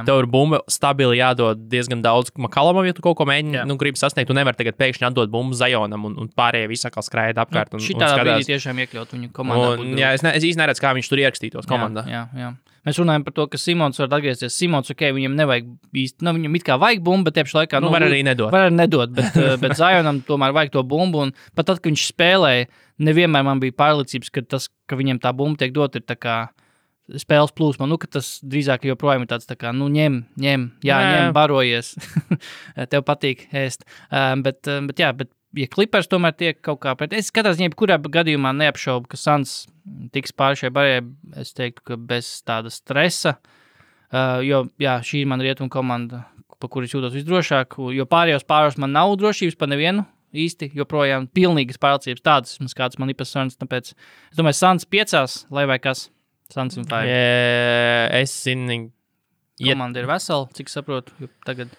Tev ir bumba stabili jādod diezgan daudz Makalamam, ja tu kaut ko mēģini, gribi sasniegt. Tu nevar tagad pēkšņi atdot bumbu Zajonam un pārējie visi atkal skraida apkārt. Šitā brīdī tiešām iekļaut viņu komandā. Es īsti neredzu, kā viņš tur ierakstītos komandā. Jā. Mēs runājam par to, ka Simons var atgriezties. Simons, viņam nevajag īsti, viņam it kā vajag bumbu, bet tiepš laikā... var arī nedot. Var arī nedot, bet Zajonam tomēr vajag to bumbu, un pat tad, kad viņš spēlēja, nevienmēr man bija pārliecības, ka viņam tā bumba tiek dot, ir tā kā spēles plūsma, ka tas drīzāk joprojām ir tāds tā kā, ņem, barojies, tev patīk ēst. Bet ja Clippers tomēr tiek kaut kā pret... Es skatās, kurā gadījumā neapšaubu, ka Suns tiks pāri šai barjai, es teiktu, ka bez tāda stresa, jo, šī ir man rietumu komanda, pa kuru es jūtos visdrošāk, jo pārējos man nav drošības pa nevienu īsti, joprojām pilnīgas pārliecības tādas, kādas man ir pa Suns, tāpēc es domāju, Suns 5, lai vai kas, Suns un 5. Es zinu... Komanda ir vesela, cik saprotu, jo tagad...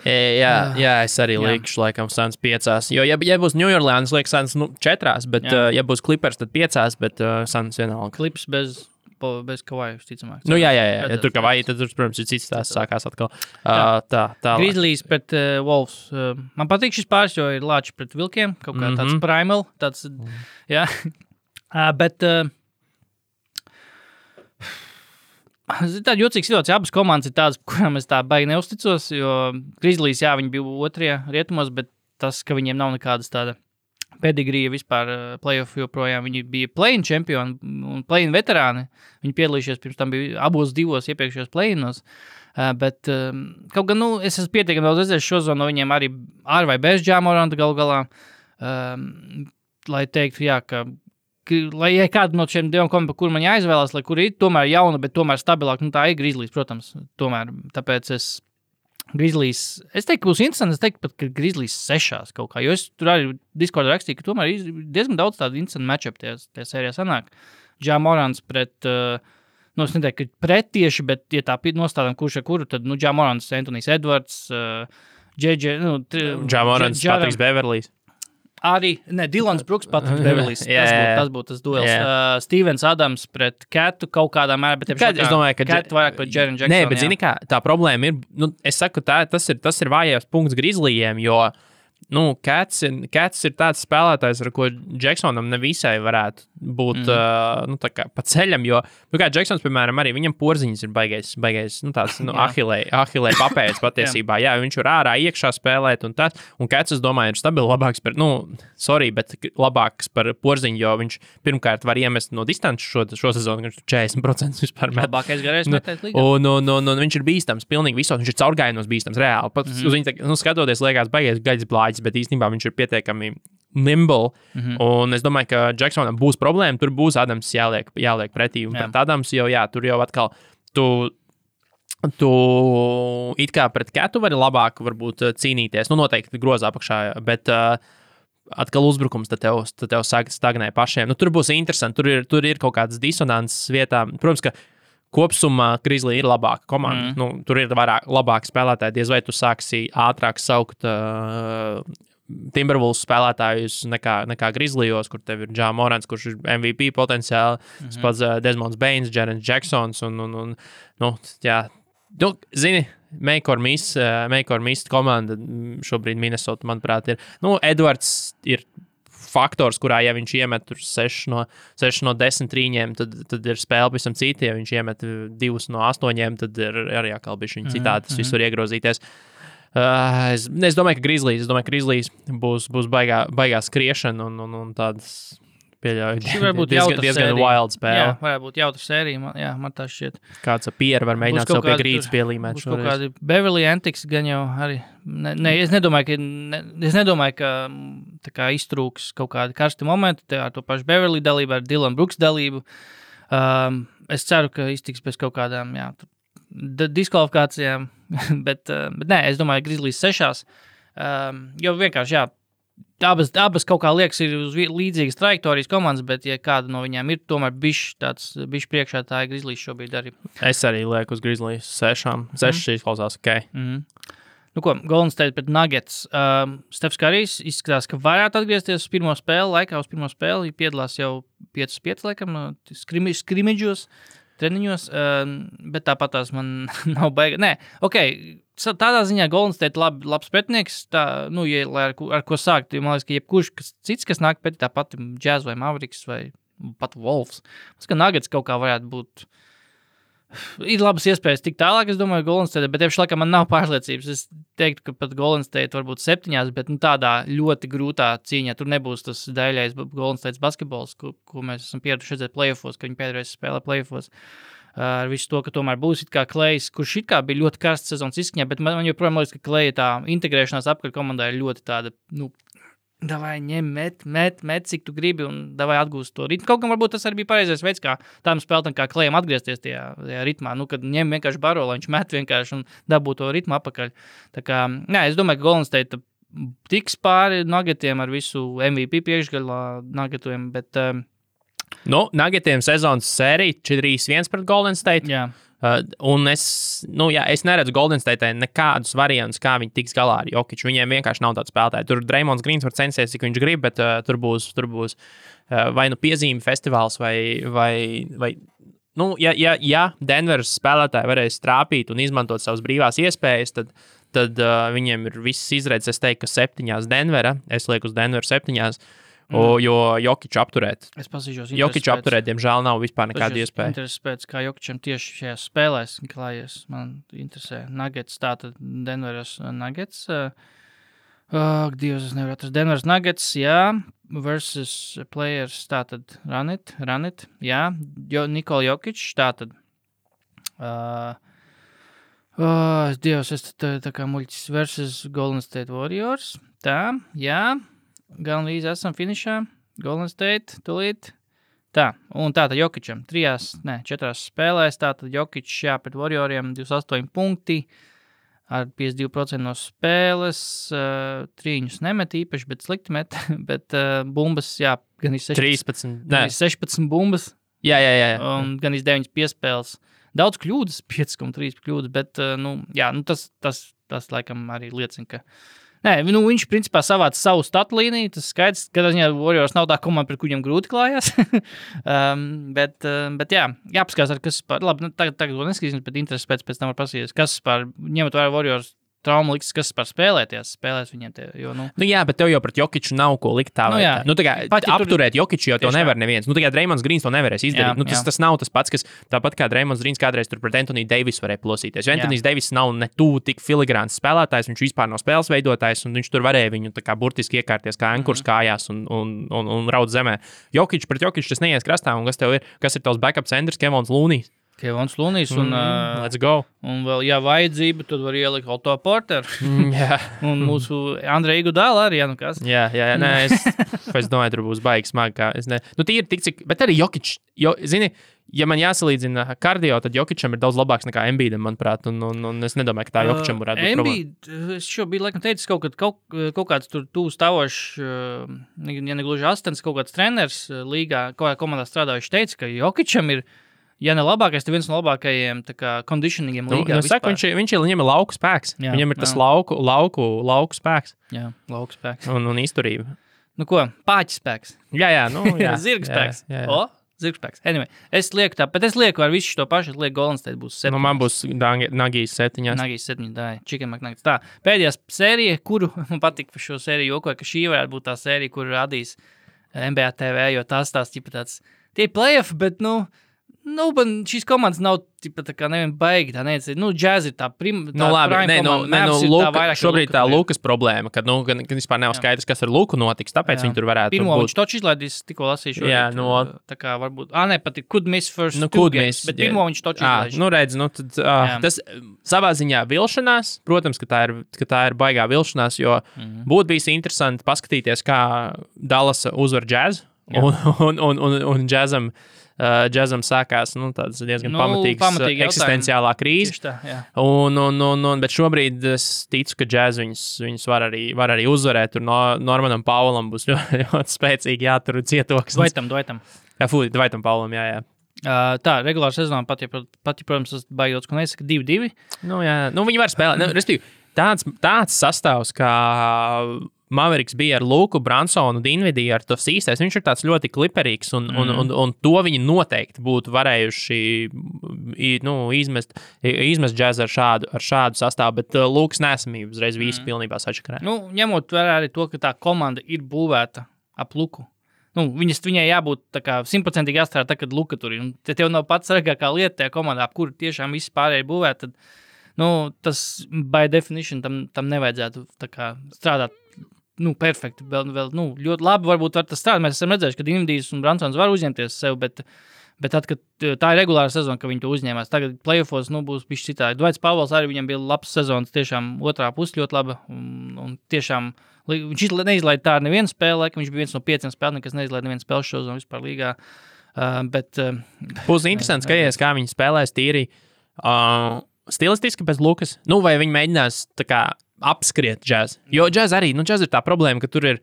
Jā, es arī likšu, laikam, Suns 5. Jo, ja būs New Orleans, liekas, Suns 4, bet, ja būs Clippers, tad 5, bet Suns vienalga. Clips bez Kawhi, ticamāk. Ja tur Kawhi, tad tur, protams, ir cits tās sākās atkal. Tā. Grizzlies pret Wolves. Man patīk šis pāris, jo ir Lāči pret Vilkiem, kaut kā tāds primal, tāds, jā. Bet... Tāda jocīga situācija. Abas komandas ir tādas, kurām es tā baigi neusticos, jo Grizzlies, viņi bija 2. rietumos, bet tas, ka viņiem nav nekādas tāda pedigrija vispār playoff joprojām. Viņi bija play-in čempioni un play-in veterāni. Viņi piedalījušies pirms tam bija abos 2 iepriekšējos play-inos. Bet kaut gan, es esmu pietiekami daudz redzējis šo zonu no viņiem arī ar vai bez Ja Moranta galu galā. Lai teiktu, ka lai kāda no šiem 2 komandām, kur man jāizvēlās, lai kur ir tomēr jauna, bet tomēr stabilāk, tā ir Grizzlies, protams, tomēr, tāpēc es teiktu, būs interesanti, es teiktu pat, ka Grizzlies 6 kaut kā, jo es tur arī Discordā rakstīju, ka tomēr ir diezgan daudz tādu interesantu matchup tajā sērijā sanāk. Ja Morants pret, es neteiktu, ka pret tieši, bet, ja tā nostādām kurš ar kuru, tad, Ja Morants, Anthony's Edwards, Ja Morants, Patriks Beverlijs. Arī, Dylans Brooks, Patriks Beverlijs, tas būtu tas duels. Stevens Adams pret Ketu kaut kādā mērā, bet es domāju, ka Ketu vairāk pret Jaren Jackson. Nē, bet zini kā, tā problēma ir, es saku, tas ir vājais punkts Grizzlijiem, jo, Cats ir tāds spēlētājs, ar ko Jacksonam nevisai varētu būt, tā kā pa ceļam, jo, kā Jacksons, piemēram, arī viņam porziņas ir baigais, tāds, ahilē papējas patiesībā, viņš var ārā iekšā spēlēt un tas, un Cats, es domāju, ir stabili labāks par, bet labāks par porziņu, jo viņš pirmkārt var iemest no distances šo sezonu, viņš 40% vispār met. Labākais garais metēt līgā. Un viņš ir bīstams, pilnīgi visos, viņš ir caurgājienos bīstams, reāli. Pat uz viņu, skatoties, liekas, baigais gaļas blāģis, bet īstenībā viņš ir pietiekami nimble, un es domāju, ka Jacksonam būs problēma, tur būs Adams jāliek pretī, un pret Adams jau, tur jau atkal tu it kā pret Ketu vari labāk varbūt cīnīties, noteikti grozā apakšā, bet atkal uzbrukums, tad tev sāk stagnē pašiem. Tur būs interesanti, tur ir kaut kādas disonances vietā, protams, ka kopsumā Grizzly ir labāka komanda. Tur ir labāki spēlētāji. Diez vai tu sāksi ātrāk saukt Timberwolves spēlētājus nekā Grizzlyos, kur tev ir Ja Morants, kurš ir MVP potenciāli, pats Desmonds Baines, Jaren Jacksons un zini, make or miss komanda šobrīd Minnesota, manuprāt, ir. Edwards ir faktors, kurā, ja viņš iemet 6 no 10 trīņiem, tad ir spēle pavisam cita. Ja viņš iemet 2 no 8, tad ir arī atkal bišķiņ citādi, tas viss var iegrozīties. Es domāju, ka Grizzlies būs baigā skriešana un tādas pieļauju diezgan wild spēle. Jā, varētu būt jautra sērija, man tā šķiet. Kāds Pierre var mēģināt sev pie grīdas pielīmēt šoreiz. Būs kaut kādi Beverly Antics gan jau arī. Es nedomāju, ka tā kā iztrūks kaut kādi karsti momenti, ar to pašu Beverly dalību, ar Dylan Brooks dalību. Es ceru, ka iztiks bez kaut kādām, diskvalifikācijām, bet nē, es domāju, Grizzlies 6. Jo vienkārši, jā, abas kaut kā liekas ir uz līdzīgas trajektorijas komandas, bet ja kāda no viņām ir tomēr bišķi priekšā, tā ir Grizzlies šobrīd arī. Es arī lieku uz Grizzlies 6. 6 izklausās, ok. Nu ko, Golden State pret Nuggets. Stefs Karijs izskatās, ka varētu atgriezties uz pirmo spēli, piedalās jau 5-5, laikam, skrimidžos, treniņos, bet tāpat tās man nav baiga. Nē, ok, tādā ziņā Golden State labs pretinieks, tā, nu, ja, ar ko sākt, man liekas, ka jebkurš cits, kas nāk pēc tāpat Jazz vai Mavericks vai pat Wolves. Mums, ka Nuggets kaut kā varētu būt. Ir labas iespējas tik tālāk, es domāju, Golden State, bet tieši laikam man nav pārliecības. Es teiktu, ka pat Golden State varbūt 7, bet tādā ļoti grūtā cīņā. Tur nebūs tas daļais Golden State basketbols, ko mēs esam pieraduši redzēt playoffos, ka viņi pēdējais spēlē playoffos. Ar visu to, ka tomēr būs it kā Klejs, kurš it kā bija ļoti karsts sezonas izskaņā, bet man joprojām liekas, ka Kleja tā integrēšanās apkārt komandā ir ļoti tāda, nu, davai ņem, met, cik tu gribi un davai atgūst to ritmu. Kaut gan varbūt tas arī bija pareizais veids, kā tām spēlētām kā Klejam atgriezties tajā ritmā, nu, kad ņem vienkārši baro, lai viņš met vienkārši un dabū to ritmu apakaļ. Tā kā, nē, es domāju, ka Golden State tiks pāri Nuggetiem ar visu MVP priekšgalā Nuggetiem, bet... Nuggetiem sezonas sērija 4-1 pret Golden State. Jā. Un es neredzu Golden State nekādus variantus, kā viņi tiks galā ar Jokiču. Viņiem vienkārši nav tāds spēlētāji. Tur Draymonds Greens var censties, cik viņš grib, bet tur būs vai nu piezīme festivāls, vai nu, ja Denveras spēlētāji varēs trāpīt un izmantot savas brīvās iespējas, tad viņiem ir viss izredzes. Es teiktu, ka 7 Denvera, es lieku uz Denveru 7, jo Jokiču apturēt. Es pasīšos. Jokiču apturēt, diemžēl nav vispār nekāda iespēja. Intereses pēc, kā Jokičam tieši šajās spēlēs klājies. Man interesē. Nuggets, tātad Denveras Nuggets. Dievs, es nevaru atrast. Denveras Nuggets, jā. Versus players, tātad run it, jā. Nikola Jokič, tātad. Dievs, es tā kā muļķis versus Golden State Warriors. Tā, jā. Gan līdz esam finišā. Golden State, tulīt. Tā, un tātad Jokičam 4 spēlēs, tātad Jokičs pret Warrioriem 28 punkti, ar 52% no spēles, trīņus nemet īpaši, bet slikti met, bet bumbas, gan 16 bumbas. Jā. Un gan 9 piespēles. Daudz kļūdas, 5,3 kļūdas, bet, tas laikam arī liecina, ka nē, viņš principā savāca savu statu līniju, tas skaidrs, ka Warriors nav tā komanda, pret kuriem grūti klājās. bet jāpaskās, kas par, labi, tagad to neskatīsim, bet intereses pēc tam var pasīties, kas par, ņemot vērā Warriors traumu liks, kas par spēlēs viņiem te, jo, nu. Nu jā, bet tev jau pret Jokiču nav ko likt tā vai tā. Nu tā kā apturēt Jokiču jau to nevar neviens. Nu tā kā Draymonds Greens to nevarēs izdarīt. Tas nav tas pats, kas tāpat kā Draymonds Greens kādreiz tur pret Anthony Davis varēja plosīties. Jo Anthony Davis nav ne tuvu tik filigrāns spēlētājs, viņš vispār nav spēles veidotājs, un viņš tur varēja viņu tā kā burtiski iekārties kā ankurs kājās un raud zemē. Jokiču pret Jokiču tas neies krastā, un kas ir tavs backup centrs, Kevons Loonijs? Kevons Loonijs un, let's go. Un vēl, ja vajadzība, tad var ielikt Otto Porter. Un mūsu Andreja Iguodala arī, kas? Jā, nē, es domāju, tur būs baigi smagi, kā es ne. Nu, tīri tik cik, bet arī Jokič, zini, ja man jāsalīdzina kardio, tad Jokičam ir daudz labāks nekā Embiidam, manuprāt, un es nedomāju, ka tā Jokičam varētu būt problēma. Embiid, es šo biju laikam teicis kaut kāds tur tūs stāvošs, ja negluži astens, kaut kāds treners līgā, kaut kā komandā strādājuši teica, ka Jokičam ir, ja ne labākais, tad viens no labākajiem conditioningiem līgā. Saka, viņam ir lauku spēks. Jā, viņam ir tas lauku spēks. Jā, lauku spēks. Un izturība. Nu ko, pāķis spēks. Jā. Zirga spēks. Jā. Zirga spēks. Anyway, es lieku ar visu to pašu, es lieku Golden State būs 7. Nu, man būs Nagijas 7. Nagijas 7, tā, Chicken McNuggets. Tā, pēdējā sērija, kuru man patīk par šo sēriju jokoja, ka šī varētu būt tā sērija, kuru radīs NBA TV, jo tās tāds, tie playoff, bet, šīs komandas nav tā kā nevien baigi, tā neviens, Jazz ir tā šobrīd tā Lukas problēma, kad vispār nav skaidrs, kas ar Luku notiks, tāpēc viņi tur varētu pirmo būt. Viņš toči izlaidīs, tikko lasīšu. Jā, tā kā varbūt, pat could miss first games, bet pirmo viņš toči izlaidīs. Redz, tas savā ziņā vilšanās, protams, ka tā ir baigā vilšanās, jo būtu bijis interesanti paskatīties, kā Dallasa uzvar Jazz, un Jazzam Džezam sākās tāds diezgan pamatīgs eksistenciālā krīze. Tā, bet šobrīd es ticu, ka Džez viņus var arī uzvarēt. Tur Normanam Paulam būs ļoti spēcīgi jātur cietoks. Dvaitam. Dvaitam Paulam, jā. Tā, regulāra sezonā pat, protams, tas baidots, ko nesaka 2-2. Viņi var spēlēt. Respektīvi, tāds sastāvs, kā Mavericks bija ar Luku, Bransonu, Dinvidiju, ar tos īstais, viņš ir tāds ļoti kliperīgs, un to viņi noteikti būtu varējuši izmest Džezu ar šādu sastāvu, bet Lukas nesamība uzreiz visi pilnībā sačakarē. Ņemot vērā arī to, ka tā komanda ir būvēta ap Luku. Viņai jābūt 100% jāstrādā tā, kad Luka tur ir. Te tev nav pats svarīgākā lieta tajā komandā, ap kuru tiešām visi pārējie būvēt, tad tas by definition tam nevajadzētu strādāt perfekti. Vēl ļoti labi varbūt var tas strādāt. Mēs esam redzējuši, ka Dinvidijs un Bransons var uzņemties sev, bet tad, kad tā ir regulāra sezona, ka viņi to uzņēmās, tagad playoffos būs bišķi citādi. Dvaits Pavels arī viņam bija labs sezonas, tiešām otrā puse ļoti laba un tiešām viņš neizlaida tā ar nevienu spēli, viņš bija viens no 5 spēlēm, kas neizlaida nevienu spēli šozonu vispār līgā. Būs interesants skaties, kā viņi spēlēs tīri stilistiski pēc Lukas. Vai viņi mēģinās apskriet Džez. Jo Džez arī, Džez ir tā problēma, ka tur ir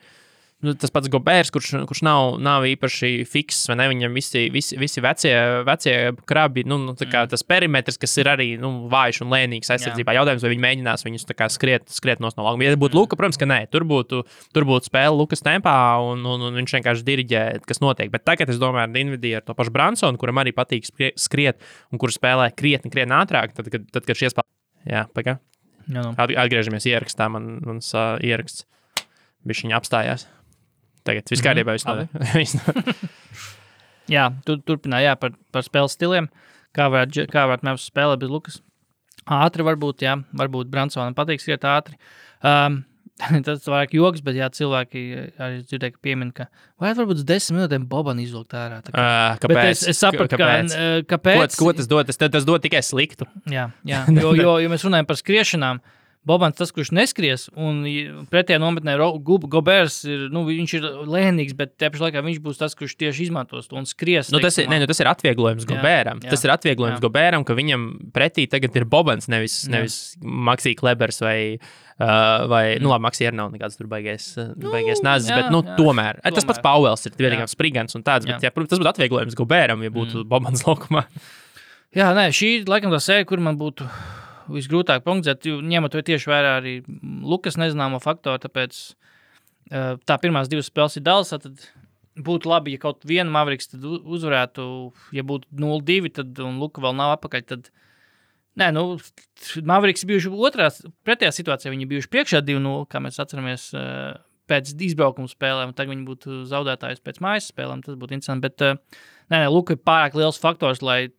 tas pats Gobērs, kurš nav īpaši fiks, vai ne? Viņam visi vecie krabi, tas perimetrs, kas ir arī vājš un lēnīgs aizsardzībā. Jautājums, vai viņi mēģinās viņus skriet no laukuma. Ja būtu Luka, protams, ka nē, tur būtu spēle Lukas tempā, un viņš vienkārši diriģē, kas notiek. Bet tagad, es domāju, ar Dinvidiju, ar to pašu Bransonu, kuram arī patīk skriet, un kur spēlē krietni ātrāk, tad kad šie spēlē. Jā, pagā. Atgriežamies ierakstā, mans ieraksts bišķiņ apstājās. Tagad viss kārtībā Jā, turpinā par spēles stiliem. Kā varētu mēs spēlēt bez Lukas? Ātri varbūt Bransonam patīk skriet ātri. Tas vairāk joks, bet cilvēki arī dzirdēja, ka piemin, ka varbūt 10 minūtēm Boban izvilkt ārā. Kāpēc? Es sapratu, kāpēc. Ko tas dod? Tas dod tikai sliktu. Jā, jo mēs runājam par skriešanām. Bobans tas, kurš neskries, un pretējā nometnē Gobērs ir, viņš ir lēnīgs, bet tajā pašā laikā viņš būs tas, kurš tieši izmantos to un skries. Tas ir atvieglojums Gobēram. Tas ir atvieglojums Gobēram, ka viņam pretī tagad ir Bobans, nevis Maksī Klebers vai labi, Maksī arī nav nekāds tur baigies nazis, bet tomēr. Tas pats Pauels ir vienīgām sprigans un tāds, bet protams, tas būtu atvieglojums Gobēram, ja būtu Bobans laukumā. Jā, nē, šī laikam tā sērija, kur man būtu visgrūtāk prognozēt, ņemot to tieši vērā arī Lukas nezināmo faktoru, tāpēc tā pirmās 2 spēles ir Dallasā, tad būtu labi, ja kaut vienu Mavericks tad uzvarētu, ja būtu 0-2, tad un Luka vēl nav apakaļ, tad Mavericks bijuši pretējā situācijā, viņi bijuši priekšā 2-0, kā mēs atceramies pēc izbraukuma spēlēm, tagad viņi būtu zaudētājs pēc mājas spēlēm, tas būtu interesanti, bet Luka ir pārāk liels faktors, lai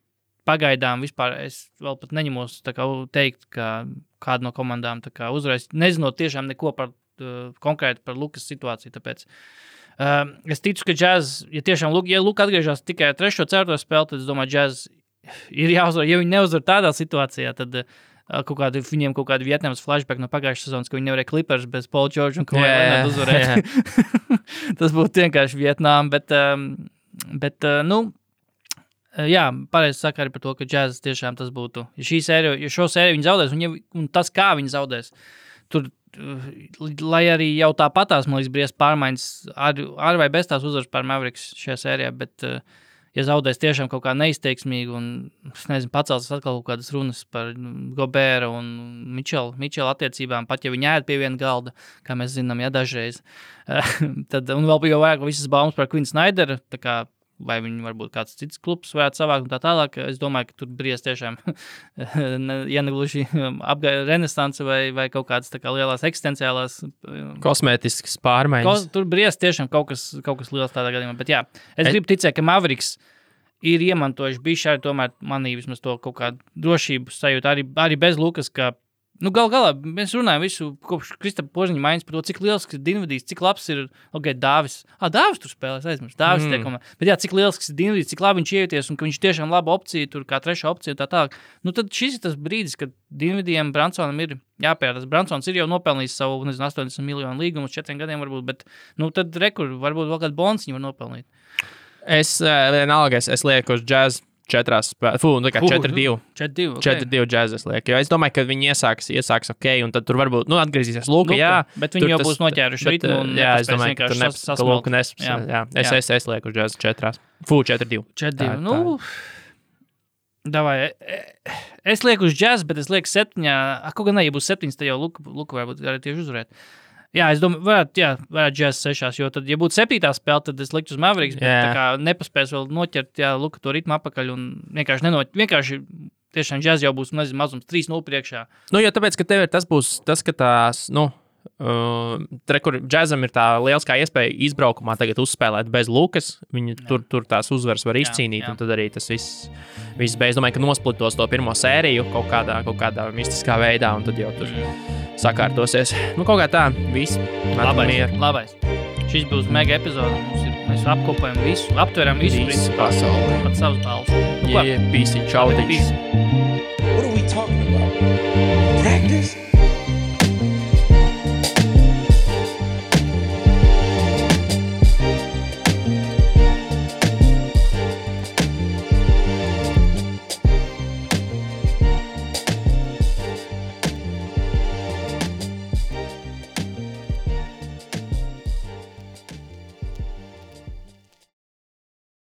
pagaidām vispār es vēl pat neņemos teikt, ka kāda no komandām uzvarēs, nezinot tiešām neko konkrēti par Lukas situāciju, tāpēc es ticu, ka Jazz, ja tiešām Luka atgriežās tikai 3. 4. spēli, tad es domāju, Jazz ir jāuzvar, ja viņi neuzvar tādā situācijā, tad viņiem kaut kādi Vietnamas flashback no pagājušas sezonas, ka viņi nevarēja Clippers bez Paul George un ko varētu uzvarēt. Tas būtu vienkārši Vietnām, bet pareizi saka arī par to, ka Jazz tiešām tas būtu. Ja šo sēriju viņi zaudēs, un tas, kā viņi zaudēs, tur, lai arī jau tāpatās, man liekas, briest pārmaiņas, ar vai bez tās uzvaras pār Mavericks šajā sērijā, bet ja zaudēs tiešām kaut kā neizteiksmīgi un, pacels atkal kaut kādas runas par Gobēra un Mičela attiecībām, pat ja viņi ēd pie viena galda, kā mēs zinām, dažreiz. Tad, un vēl jau vajag visas baumas par Quinn Snyderu, tā kā vai viņi varbūt kāds cits klubs varētu savākt un tā tālāk. Es domāju, ka tur briest tiešām, ja negluži renesanse vai kaut kādas tā kā lielās eksistenciālās kosmētiskas pārmaiņas. Tur briest tiešām kaut kas liels tādā gadījumā. Bet jā, es gribu ticēt, ka Mavericks ir iemantojuši bišķi arī tomēr manī vismaz to kaut kādu drošību sajūtu, arī bez Lukas, ka galā mēs runājam visu kopš Kristapa Požiņa maiņas par to, cik liels ir Dinvidijs, cik labs ir Dāvis. Dāvis tur spēlēs, aizmirst. Dāvis tiekumā. Bet jā, cik liels ir Dinvidijs, cik labi viņš ieties un ka viņš tiešām laba opcija, tur kā 3. opcija un tā tālāk. Tad šis ir tas brīdis, kad Dinvidijam Bransonam ir jāpērās. Bransons ir jau nopelnījis savu, 80 miljonu līgumu uz 4 gadiem varbūt, bet tad varbūt vēl kādu bonus viņi var nopelnīt. Vienalga, es lieku uz džēzu 4 spēlēs. 4-2. 4-2 džēzu es lieku. Jo es domāju, ka viņi iesāks ok, un tad tur varbūt atgriezīsies Luka. Jā, bet viņi jau būs noķēruši ritmu. Jā, es domāju, ka tur Luka nespēs. Jā. Es lieku uz džēzu 4. 4-2. 4-2. Nu, davai. Es lieku uz džēzu, bet es lieku 7. Kaut gan ne, ja būs 7, tad jau Luka varbūt arī tieši uzvarēt. Jā, es domāju, varētu džēzus 6, jo tad, ja būtu 7. spēle, tad es liktu uz Mavericks, bet tā kā nepaspēs vēl noķert, Luka to ritmu apakaļ un vienkārši tiešām džēzus jau būs, mazums 3-0 priekšā. Nu, jo tāpēc, ka tev ir tas, ka tās, kur džēzam ir tā lieliskā iespēja izbraukumā tagad uzspēlēt bez Lukas, viņi tur tās uzvaras var izcīnīt, un tad arī tas viss beidz. Domāju, ka nosplitos to pirmo sēriju kaut kādā mistiskā veidā, un tad jau tur sakārtosies. Kaut kā tā, viss. Labais. Šis būs mega epizode. Mēs apkopējam visu, aptveram visu pasauli. Pat savus balus. Pīsi, čau, What are we talking about? Practice?